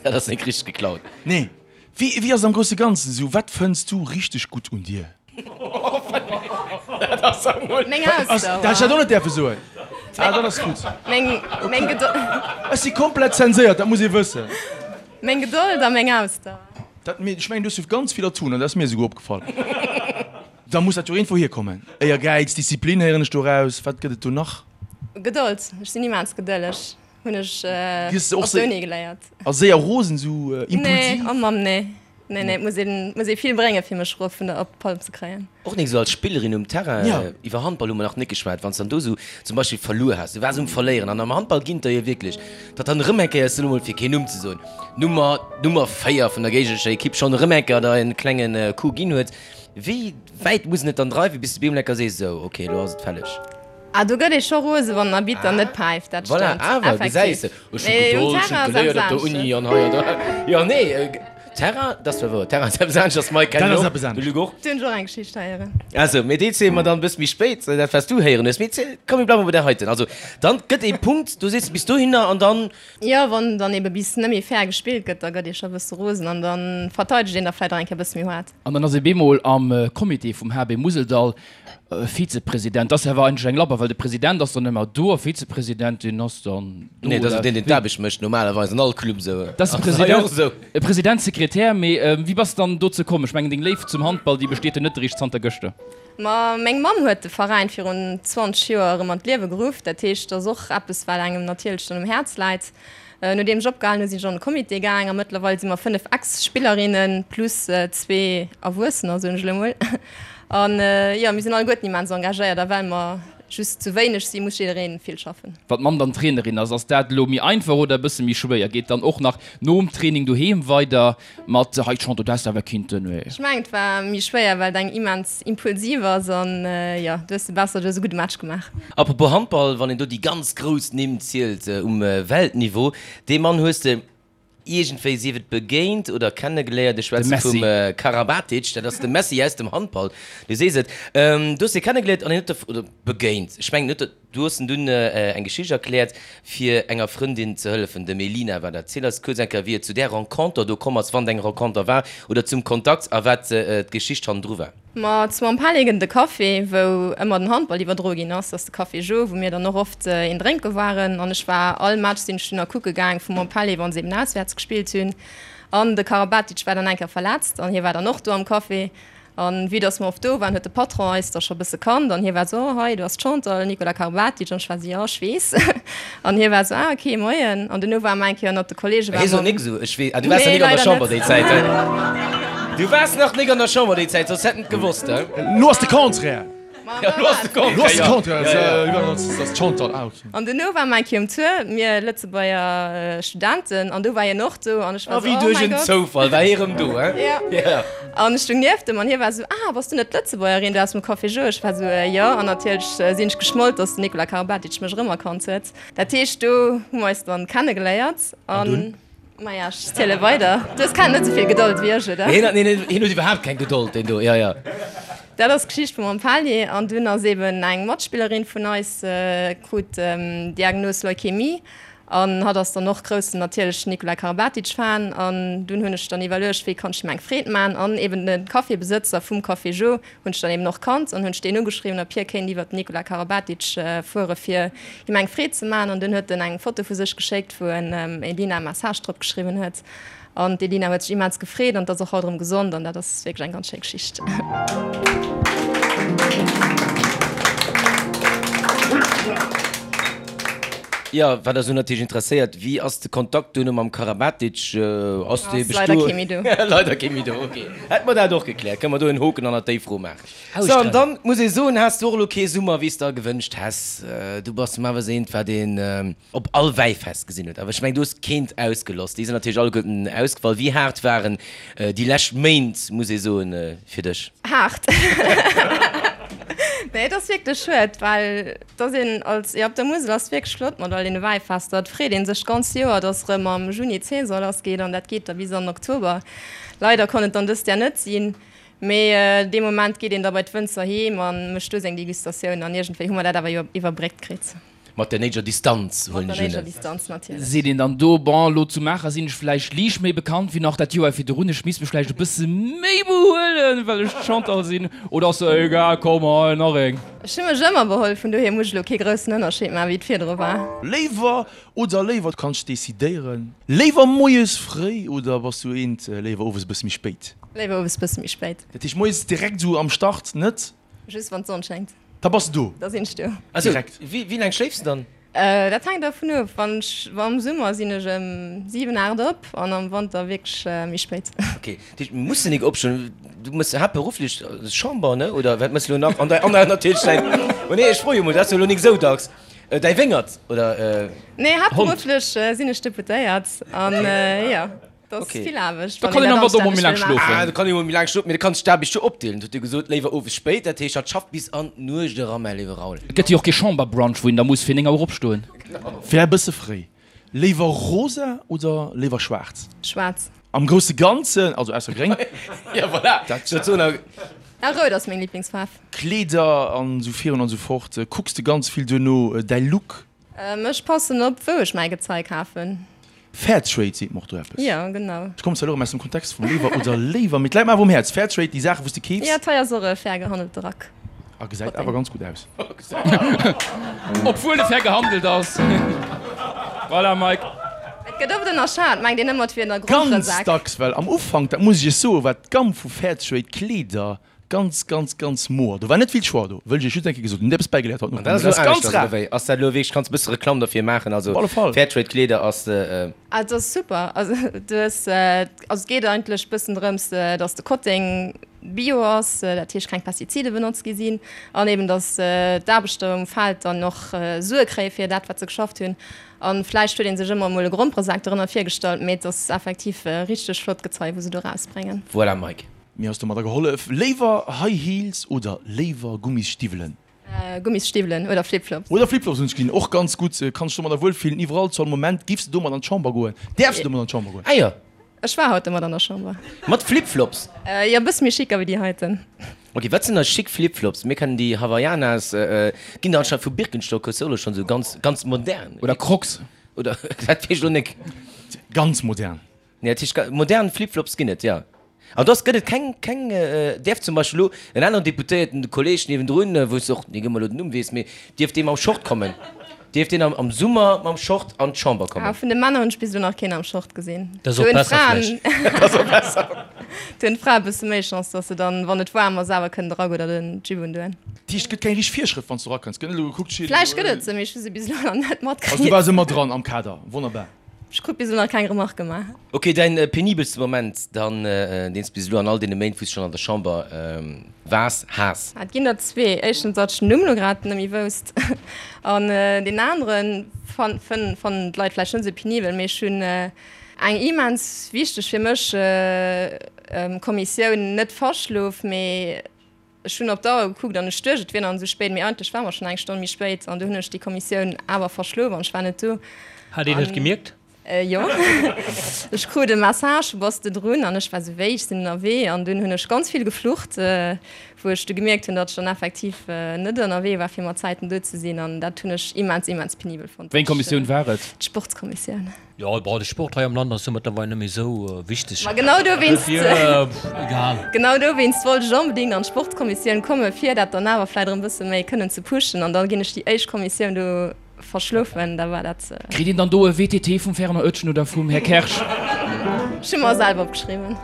Dat ass net richteg geklaut. Nee. Wéi, wéi ass et am grousse Ganzen esou? Wat fënns du richteg gutt un dir? Dat ass emol. Meng Ausdauer. Dat hätt ech dat och net däerfe soen. Ah, dat ass gutt. Meng, meng Gedold. Ech si komplett zenséiert, dat muss ee wëssen. Meng Gedold a meng Ausdauer. Dat, mee ech mengen, du hues jo ganz vill Atounen, dat ass mir esouguer opgefall. Da muss dat jo iergendwou hierkommen. Éiergäiz, Disziplin héieren ech do raus. Wat gëtt et do nach? Gedold. Ech sinn immens gedëlleg. Hunn ech op der Uni geléiert. A séier rosen, esou impulsiv? Nee, oh Mamm, nee. Nee, nee, et muss een, muss ee vill bréngen, fir mech erof vun der, op d'Palm ze kréien. Och nik esou als Spillerin um Terrain. Iwwer Handball hu mer nach nik geschwat. Wann s dann do esou zum Beispill verluer has, du waars um Verléieren an am Handball ginn et der jo wierklech, datt dann erëm eng Kéier, ech soen emol fir keen Numm ze soen, Nummer, Nummer 4 vun der géignerescher Ekipp schonn erëm eng Kéier der en klenge Coup ginn huet. Wéi wäit muss en et dann dreiwen, bis de bemol eng Kéier sees, esou, ok, elo ass et fälleg? Ah, do gëtt ee scho rose wann den Arbitter net päift, dat Voilà, stëmmt. awer, gesäis Effektiv. de, ech hu Mee um Gedold, ech hunn Terrain ass geléiert eppes op der Uni anesches. an hei an do. Jo, nee, Terrain, dat ass zwar wouer, Terrain ass eppes anesches, Mike, Dat kennen ass och, eppes de anescht. Luc och. Do hunn ech och eng Geschicht héieren. Also, mee déi ziele mer dann e bësse méi spéit, dat wat s du héieren hues. Mee ziel, komm, mir bleiwe bei där heiten. Also, dann gëtt ee Punkt, du sees bis dohinner an dann. Jo, wann dann ebe bis net méi fair gespillt gëtt, da gëtt ee scho e bësse rosen an da verteidegt een da vläicht och eng Kéier e bësse méi haart. An dann ass ee bemol am Comité vum HB Museldall Vizepresident. Dat ass awer eigentlech eng Labber, well de President ass dann ëmmer do a Vizepresident, deen ass dann do. Nee, dat ass deen, deen d'Aarbecht mécht, normalerweis an all Club esou. Dat ass de President, e President, Sekretär. Mee wéi bass de dann dozou komm? Ech mengen, deng Léift zum Handball, déi besteet jo net eréischt zanter gëschter. Ma meng Mamm huet de Veräin virun 20 Joer erëm an d'Liewe geruff. Dat heescht, dat ass och eppes, wat engem natierlech dann um Häerz läit. Nodeem ech opgehalen hu sinn ech an de Comité gaang a mëttlerweil si mer 5 Ex-Spillerinne plus zwee Erwuessener, soen ech elo mol. An jo, mir sinn alleguerten immens engagéiert a well mer just zu wéineg sinn, muss jidderee vill schaffen. Wann d'Mamm dann Trainerin ass, ass dat elo méi einfach oder e bësse méi schwéier? Geet dann och nach nom Training doheem weider Mat hei d'Chante du häss awer kinnten wéi. Ech mengen et war méi schwéier well et eng immens impulsiv ass an jo du hues de besser, du hues e gudde Match gemaach. Apropos Handball, wann een do déi ganz grouss Nimm zielt um Weltniveau, dee Mann hues de iergendwéi, sief et begéint oder kennegeléiert, ech schwätze vum Karabatic, dat ass de Messi aus dem Handball, du sees et, du hues dee kennegeléiert an hien huet der, oder begéint, ech mengen huet der, Du hues en dunn eng Geschicht erkläert, fir enger Frëndin ze hëllefen, dem Elina war dat. Ziel eis kuerz eng Kéier, wéi et zu där Renconter do komm ass, wann et eng Renconter war, oder zum Kontakt a wat d'Geschicht hannendru war. Ma zu Montpellier gëtt et e Café, wou ëmmer den Handball iwwerdroe ginn ass. Dat ass de Café Jo, wou mir dann och oft een drénke waren. An ech war all Match sinn ech dunn a kucke gaang vu Montpellier, wa se eben auswäerts gespillt hunn. An de Karabatic war dann eng Kéier verletzt an hie war dann och do am Café. An vue dass mer oft do waren, huet de Patron eis da scho bësse kannt an hie war esou, oh hei, do ass d'Chantal, Nicolas Karabatic. An ech war esou, jo, ech weess. An hie war esou, ah ok, moien. An duerno ware mer eng Kéier ënnert de Kollege, Hie ware sot mer. nik esou, ech weess. Ah, du waars nach Nee, nik an der leider Chamber net. déi Zäit, he? Du waars nach nik an der Chamber déi Zäit, soss hätt en et gewosst, he? Elo ass de Contraire. Ja, elo ass de Elo ass de Contraire, jo. Contraire, Ja, ja. dat ass d'Chantal, ah ok. An duerno ware mer eng Kéier um Tour, mir Lëtzebuerger Studenten, an do war hien och do an ech war A esou, wéi oh duerch mäi en Gott. Zoufall war hie rëm do, he? Ja. Ja. An ech stung nieft em an hie war esou, Ah, bass du net d'Lëtzebuergerin do aus dem Café Jo? Ech war esou, Jo. An natierlech sinn ech geschmollt, dass den Nicolas Karabatic mech erëmerkannt huet. Dat heescht, do hu mer eis dann kennegeléiert. An dunn? Maja, ech ziele weider. Du hues keng net esou vill Gedold wéi ech, oder? Hien hat, neen, hien huet iwwerhaapt keng Gedold, deen do, jo, jo. Dat ass d'Geschicht vum Montpellier. An dunn ass eben eng Matspillerin vun eis, krut d'Diagnos Leukämie. An hatt ass dann och groussen natierlech Nikola Karabatic Fan. An dunn hunn ech dann iwwerluecht, wéi kann ech him eng Freed man. An eben de Cafébesëtzer vum Café Jo hunn ech dann eben och kannt an hunn ech deen ugeschriwwen, ob hie kéint iwwert den Nikola Karabatic fuere fir him eng Freed ze man. An dunn huet en eng Foto vu sech geschéckt, wou en Elina e Message drop geschriwwen huet. An d'Elina huet sech immens gefreet an ass och haut erëm gesond an dat ass wierklech eng ganz schéi Geschicht. Jo, wat eis elo natierlech interesséiert, Wéi ass de Kontakt duerno mam Karabatic? Ass dee Ass leider kee méi do. Leider kee méi do, ok. Hätte mer dat och gekläert, kënne mer do en Hoken hannert déi Fro maachen. Sou, an dann muss ee soen, has du och elo kee Summer, wéi s de der gewënscht häss. Du bass normalerweis eent, wat een op all Wäifest gesinn huet. Awer ech mengen, du hues keent ausgeloss. Déi sinn natierlech alleguerten ausgefall. Wéi haart waren déi lescht Méint, muss ee soen, fir dech? Haart. Nee, et ass wierklech schued, well Dass een als, jo op der Musel ass wierklech flott mat all deene Wäifester. Et freet een sech d'ganz Joer, dass erëm am Juni d'Saison lass geet an dat geet da bis an den Oktober. Leider konnt et dann dëst Jahr net sinn, mee dee Moment geet een da bei d'Wënzer heem a mécht do seng Degustatioun an iergendwéi hu mer dat awer jo iwwerbréckt kritt. Mat der néideger Distanz, huelen ech un. Mat der néideger Distanz natierlech. Seet een dann do, bon, elo zu Maacher sinn ech vläicht liicht méi bekannt wéi nach dat Joer virdrun, ech misst mech vläicht e bësse méi behuelen, well ech d'Chantal sinn, oder ass se egal, komm hei, nach eng? Ech hu mech ëmmer beholl, vun dohier muss ech elo kee groussen Ënnerscheed maachen, wéi et virdru war. Léiwer oder léiwer, du kanns decidéieren. Léiwer moies fréi oder bass du eent léiwer owes e bësse méi spéit? Léiwer owes bësse méi spéit. Dat heescht moies direkt esou am Start net? Just wann d'Sonn schéngt. Da bass de do? Da sinn ech do. Direkt. Wéi laang schléifs de dann? Dat hänkt dervun of. Wann ech, am Summer sinn ech ëm 7, 8 op an am Wanter wierklech méi spéit. Ok, dat heescht mir mussen nik opstoen. Du mëss haaptberufflech Chamber, ne? Oder wat mëss de elo nach? An däi, an natierlech däin, oh nee, ech froe jo mol, dat ass jo elo nik esou dacks. Däi Wéngert oder Hond? Nee, haaptberufflech sinn ech Deputéiert an jo. Dat ass vill Aarbecht. Da kann een am Wanter och mol méi laang schlofen. Ah, da kann ee mol méi laang schlofen, mee da kanns de d'Aarbecht jo opdeelen. Huet e gesot, léiwer owes spéit, dat heescht, hatt schafft bis an d'Nuecht eran, mäi léiwe Raoul. Et gëtt jo och kee Chamberbrunch, wou een da muss fir 9 Auer opstoen. Wär e bësse fréi. Léiwer rosa oder léiwer schwaarz? Schwaarz. Am grousse Ganzen, also ausser gréng. Jo, voilà, dat soen a. Ah, rout ass meng Liblingsfaarf. Kleeder an esou virun an esou fort. Kucks de ganz vill duerno däi Look? Ech passen op, wou ech mäi Gezei kafen. Fairtrade seet mer och do eppes. Jo, genau. Ech kommen zwar elo erëm aus dem Kontext vum Léiwer oder Léiwer, mee et läit mer awer um Häerz. Fairtrade, déi Saachen, wou s de keefs. Jo, d'hei ass och e fair gehandelte Rack. A gesäit awer ganz gutt aus. Obwuel e fair gehandelt ass. Voilà, Mike. Et gëtt oft ënnerschat, mengt een ëmmer, et wier en Ganz Gromperesak. dacks, well am Ufank, dat muss ech iech soen, war d'Gamm vu Fairtrade Kleeder Ganz, ganz, ganz moer. Do war net vill Choix do, wëll ech iech just eng Kéier gesot hunn. Hutt eppes bäigeléiert haut An dat ass elo ganz aneschters, rar. oder wéi? Ass dat elo wierklech, kanns e bësse Reklamm derfir maachen? Also Op alle Fall. Fairtrade Kleeder ass. Ah, et ass super. Also du hues, also et geet eigentlech bëssen drëms, dass de Kotteng bio ass, dat heescht keng Pestizide benotzt gi sinn an eben dass d'Aarbechter um Feld dann och Sue kréie fir dat wat se geschafft hunn. An vläicht huet ee sech ëmmer emol e Gromperesak dorënner virgestallt, mee et ass effektiv richteg flott Gezei wou se do erausbréngen. Voilà Mike. Mir ass domadder gehollef. Léiwer High Heels oder léiwer Gummisstiwwelen? Gummisstiwwelen oder Flipflops. Oder Flipflops hunn ech gesinn, och ganz gutt. Kanns dech domadder wuel fillen iwwerall, zu all Moment. Giffs de domat an d'Chamber goen? Däerfs de domat an d'Chamber goen? Ah jo. Ech war haut domat an der Chamber. Mat Flipflops? Jo, e bësse méi chic ewéi déi heiten. Ok, wat sinn da chic Flipflops? Mir kennen déi Havaianas, ginn der anscheinend vu Birkenstock, hues de och elo schonn esou ganz, ganz modern. Oder Crocs. Oder, dat weess ech elo nek. Ganz modern. Nee, dat heescht, modern Flipflops ginn et, jo. An dass gëtt et keng, keng, däerf zum Beispill elo en aneren Deputéierten, de Kolleeg niewendrun, wou s de och nik ëmmer elo den Numm weess, mee dierf dee mam Short kommen? Dierf deen am Summer mam Short an d'Chamber kommen? Ah, vun de Männer hunn ech bis elo nach keen am Short gesinn. Dat ass och besser vläicht. Dat ass och besser. Do hunn d'Frae e bësse méi Chance, dass se dann, wann et waarm ass, awer kënnen de Rack oder den Jupe undoen. Dat heescht, et gëtt keng richteg Virschrëft, wann s du erakënns? Gëtt net elo gekuckt, steet Vläicht gëtt et se, mee ech hu se bis elo nach net matkritt. Also du waars ëmmer dran am Kader, wonnerbar. Ech krut bis elo nach keng Remarque gemaach. Ok, däin penibelste Moment dann, deen s bis elo an all deene Méint, wou s schonn an der Chamber waars, has? Et ginn der zwee. Éischtens, datt ech den Numm elo grad net méi wousst. An deen aneren fannen d'Leit vläicht net esou penibel, mee ech hunn eng immens wichteg fir mech Kommissioun net verschlof, mee Ech hunn op d'Auer gekuckt an ech duecht, et wier nach net esou spéit, mee eigentlech war mer schonn eng Stonn méi spéit an du hunn ech déi Kommissioun awer verschlof an ech war net do. Hat een et gemierkt? Jo, ech krut e Message, Bass de drun? An ech war esou, Wéi, ech sinn ënnerwee. An dunn hunn ech ganz vill geflucht, wou ech du gemierkt hunn, datt ech dann effektiv net ënnerwee war, fir mat Zäiten do ze sinn. An dat hunn ech immens, immens penibel fonnt. Wéi eng Kommissioun war et? D'Sportskommissioun. Jo, bon, de Sport hei am Land ass jo mëttlerweil net méi esou wichteg. Ma genau dowéinst, Dofir, egal. genau dowéinst wollt ech onbedéngt an d'Sportskommissioun kommen, fir dat dann awer vläicht erëm e bësse méi kënnen ze pushen. An da ginn ech déi éischt Kommissioun do verschlofen, da war dat. Kritt een dann do e WTT vum Fernand Oetjen oder vum Här Kersch? Ech hu mer selwer opgeschriwwen.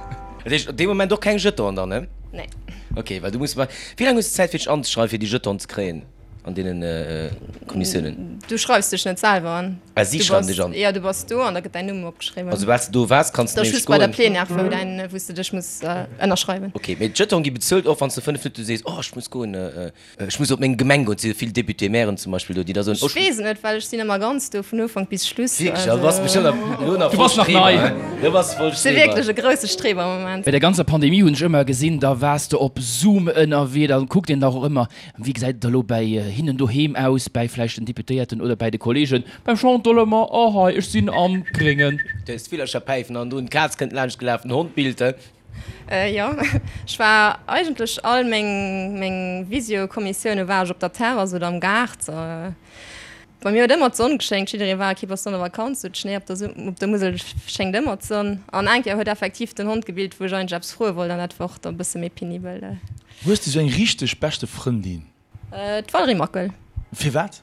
Dat heescht op dee Moment och keng Jetonen dann, ne? Nee. Ok, well du muss, wéi laang hues de Zäit fir dech anzeschreiwen, fir déi Jetonen ze kréien an deene Kommissiounen? Du schreifs dech net selwer an. Ah, si schreiwen dech an? Jo, du bass do an da gëtt däin Numm opgeschriwwen. Also soubal s de do waars, kanns de Dat ass nämlech just bei der goen. Plenière, wou däin, wou s de dech muss ënnerschreiwen. Ok, mee d'Jeton gi bezuelt, och wann s de 5 Minutte sees, oh ech muss goen, ech muss op meng Gemeng goen. Et si jo vill Député-mairen zum Beispill do, déi da soen, oh Ech weess et net, well ech sinn ëmmer ganz do, vun Ufank bis Schluss. Wierklech? Also bass bestëmmt nach elo nach Du voll bass nach Streber, nei. hä? Du bass voll Ech si Streber. wierklech e grousse Streber am Moment. Bei der ganzer Pandemie hunn ech ëmmer gesinn, da waars de op Zoom ënnerwee, da kuckt een dach och ëmmer, Wéi gesäit et elo bäi hinnen doheem aus, bäi vläicht den Deputéierten oder bäi de Kollegen? Beim Chantal ëmmer, Oh hei, ech sinn am Gréngen. Du hues d'Villercher päifen an drun, d'Kaz kënnt laanscht gelaf, den Hond billt. Jo, ech war eigentlech all meng meng Visio-Kommissioune war ech op der Terrass oder am Gaart. Bei mir huet ëmmer d'Sonn geschéngt, jidderee war, okay, bass du an der Vakanz, sou Schnéi op der op der Musel schéngt ëmmer d'Sonn. An eng Kéier huet effektiv den Hond gebillt, wou ech eigentlech eppes froe wollt an dat war och da bësse méi penibel. Hues de sou eng richteg beschte Frëndin? D'Valérie Mackel. Firwat?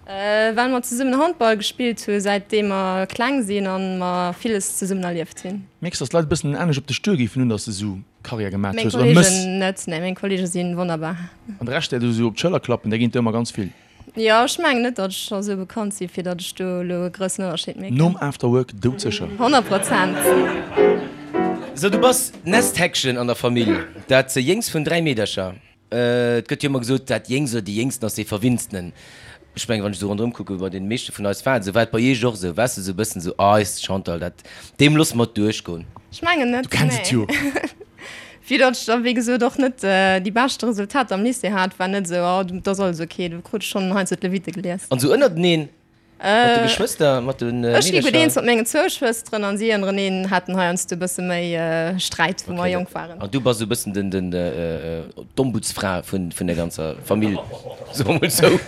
Well mer zesummen Handball gespillt hu säitdeem mer kleng sinn an mer villes zesummen erlieft hunn. Mierks dass d'Leit e bëssen anescht op dech duer géifen hunn, dass de sou Karriär gemat Meng hues oder mëss? Kollegen net, nee, meng Kollege si wonnerbar. An de Rescht där du sou op d'Schëller klappen, där ginn et der ëmmer ganz vill. Jo, ech mengen net, datt ech scho sou bekannt si fir datt ech do elo e groussen Ënnerscheed mierken. Nom Afterwork doudsécher. 100%. So, du bass d'Nestheckchen an der Famill, dat jéngst vun 3 Meedercher. Et gëtt jo ëmmer gesot, dat Jéngst oder déi Jéngsten ass dee Verwinnstenen. Ech mengen, wann ech esou ronderëm kucken, bei deene meeschte vun eis war et esou. War et bei iech och esou? Waars de esou e bëssen esou, ah, eist Chantal, dat, deem loosse mer et duerchgoen? Ech mengen net, Du kenns et nee. jo. Vue datt ech da wéi gesot och net déi beschte Resultater am Lycée hat, war net esou, oh dat ass alles ok, do krut ech schonn heiansdo d'Lewitte gelies. An esou ënnerteneen, mat de Geschwëster, mat de Meedercher? Ech gi gutt eens mat mengen zwou Schwësteren an si ënnereneen haten heiansdo e bësse méi Sträit, wou mer jonk waren. An du bass esou e bëssen den, den, d'Ombudsfra vun, vun der ganzer Famill, soe mer mol esou.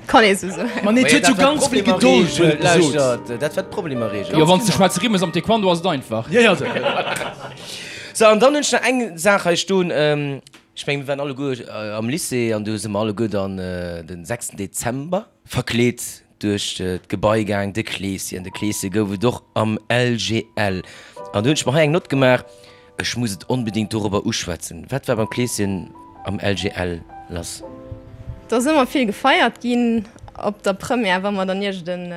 Kann ee sou soen. Ma nee, et huet jo ganz vill Gedold, huet et gesot. Lauschtert, dat war d'Problemerreegel. Jo, wann s de schwaarze Rimm hues am Taekwondo ass et einfach. Jo, jo. Sou, an dann hunn ech nach eng Saach hei stoen. Ech mengen, mir waren alleguer am Lycée an do si mer alleguer dann den sechsten Dezember verkleet duerch d'Gebai gaang, de Kleeschen. De Kleesche gouf et och am LGL. An do hunn ech mer hei eng Nott gemaach, ech muss et onbedéngt dorobber uschwätzen. Wat war beim Kleeschen am LGL lass? Et ass ëmmer vill gefeiert ginn op der Première, wa mer dann iergend en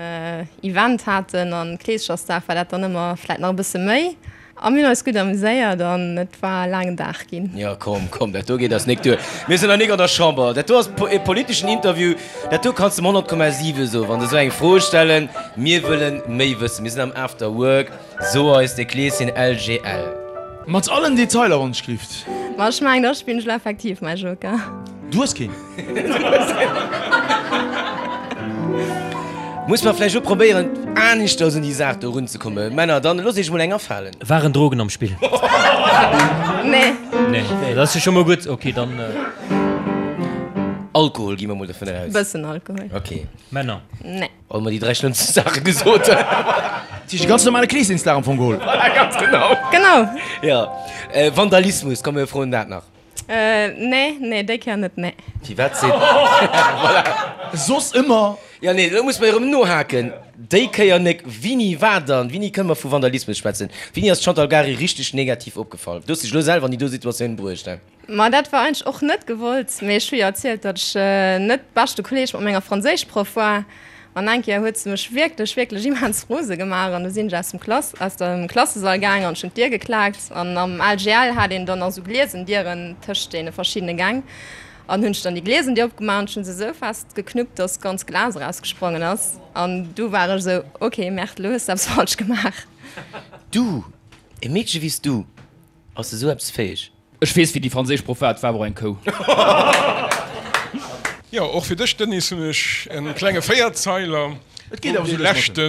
Event haten an Kleeschersdag war dat dann ëmmer vläit nach e bësse méi. A mir hunn eis gutt amuséiert an et war e laangen Dag ginn. Jo, komm, komm, dat do geet eis nik duer. Mir sinn nach nik an der Chamber. Dat do ass e politeschen Interview. Dat do kanns de em 100,7 soen, wann se esou eng Fro stellen. Mir wëllen méi wëssen. Mir sinn am After Work. So eis de Kleeschen LGL. Mat allen Detailer, wann ech glift. Ma ech mengen, da spillen ech elo effektiv mäi Joker. Du hues keen. Muss mer vläicht elo probéieren aneschters un déi Saach do erunzekommen. Männer, dann loosst iech emol eng afalen. Waren Drogen am Spill? Nee. Nee, dat ass jo scho mol gutt. Ok, dann. Alkohol, gi mer mol dovun aus. Bëssen Alkohol. Ok. Männer? Nee. Hu mer déi 3 schlëmmste Saache gesot. Dat heescht e ganz normale Kleesdingsdag am Fong geholl. Voilà, ganz genau. Genau. Jo. Vandalismus, komm mir froen dat nach. Nee, nee, déi Kéier net, nee. Firwat seet. Voilà. Soss ëmmer. Jo, nee, elo muss mer erëm nohaken. Déi Kéier nek. Wini war dann, wini kënne mer vu Vandalismus schwätzen? Wini ass d'Chantal Gary richteg negativ opgefall? Du hues dech elo selwer an déi do Situatioun bruecht, he? Ma dat war eigentlech och net gewollt, mee ech hu jo erzielt, datt ech net beschte Kolleeg mat menger Franséischproff war. An eng Kéier huet se mech wierklech, wierklech immens rose gemaach an du sinn ech aus dem Klass, aus dem Klassesall gaang an ech hunn d'Dier geklaakt. An am LGL hat een dann nach esou gliesen Dieren tëscht deene verschiddene Gäng. An hunn ech dann déi gliesen Dier opgemaach an ech hunn se esou fest geknuppt, datt ganz Glas erausgesprongen ass. An du war ech esou, ok, Merde, elo hues de eppes falsch gemaach. Du, e Meedche wéi s du, ass esou eppes fäeg? Ech weess wéi déi franséisch Proff war, et war awer och eng Kou. Jo, och fir dech Denis hunn ech en klenge Véierzeiler, wou dee leschte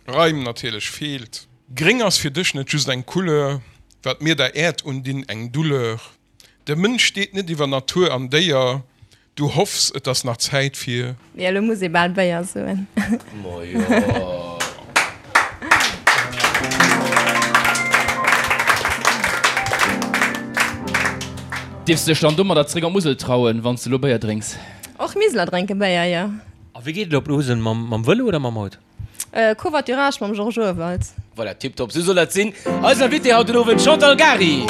Reim natierlech feelt. Gréng ass fir dech net just eng Couleur, wat mir der Äerd undinn eng Douleur. De Mënsch steet net iwwer Natur an Déier, Du hoffs, et ass nach Zäit fir. Jo, elo muss ee bal Béier soen. Ma jo. Dierfs de dech dann domadder zréck an d'Musel trauen, wann s de elo Béier drénks? Och Miseler drénke Béier, jo. A wéi geet et op d'Musel? Mam Vëlo oder mam Auto? Covoiturage mam Georges Urwald. Voilà, tiptop, sou soll dat sinn. Eisen Invité haut den Owend, Chantal Gary.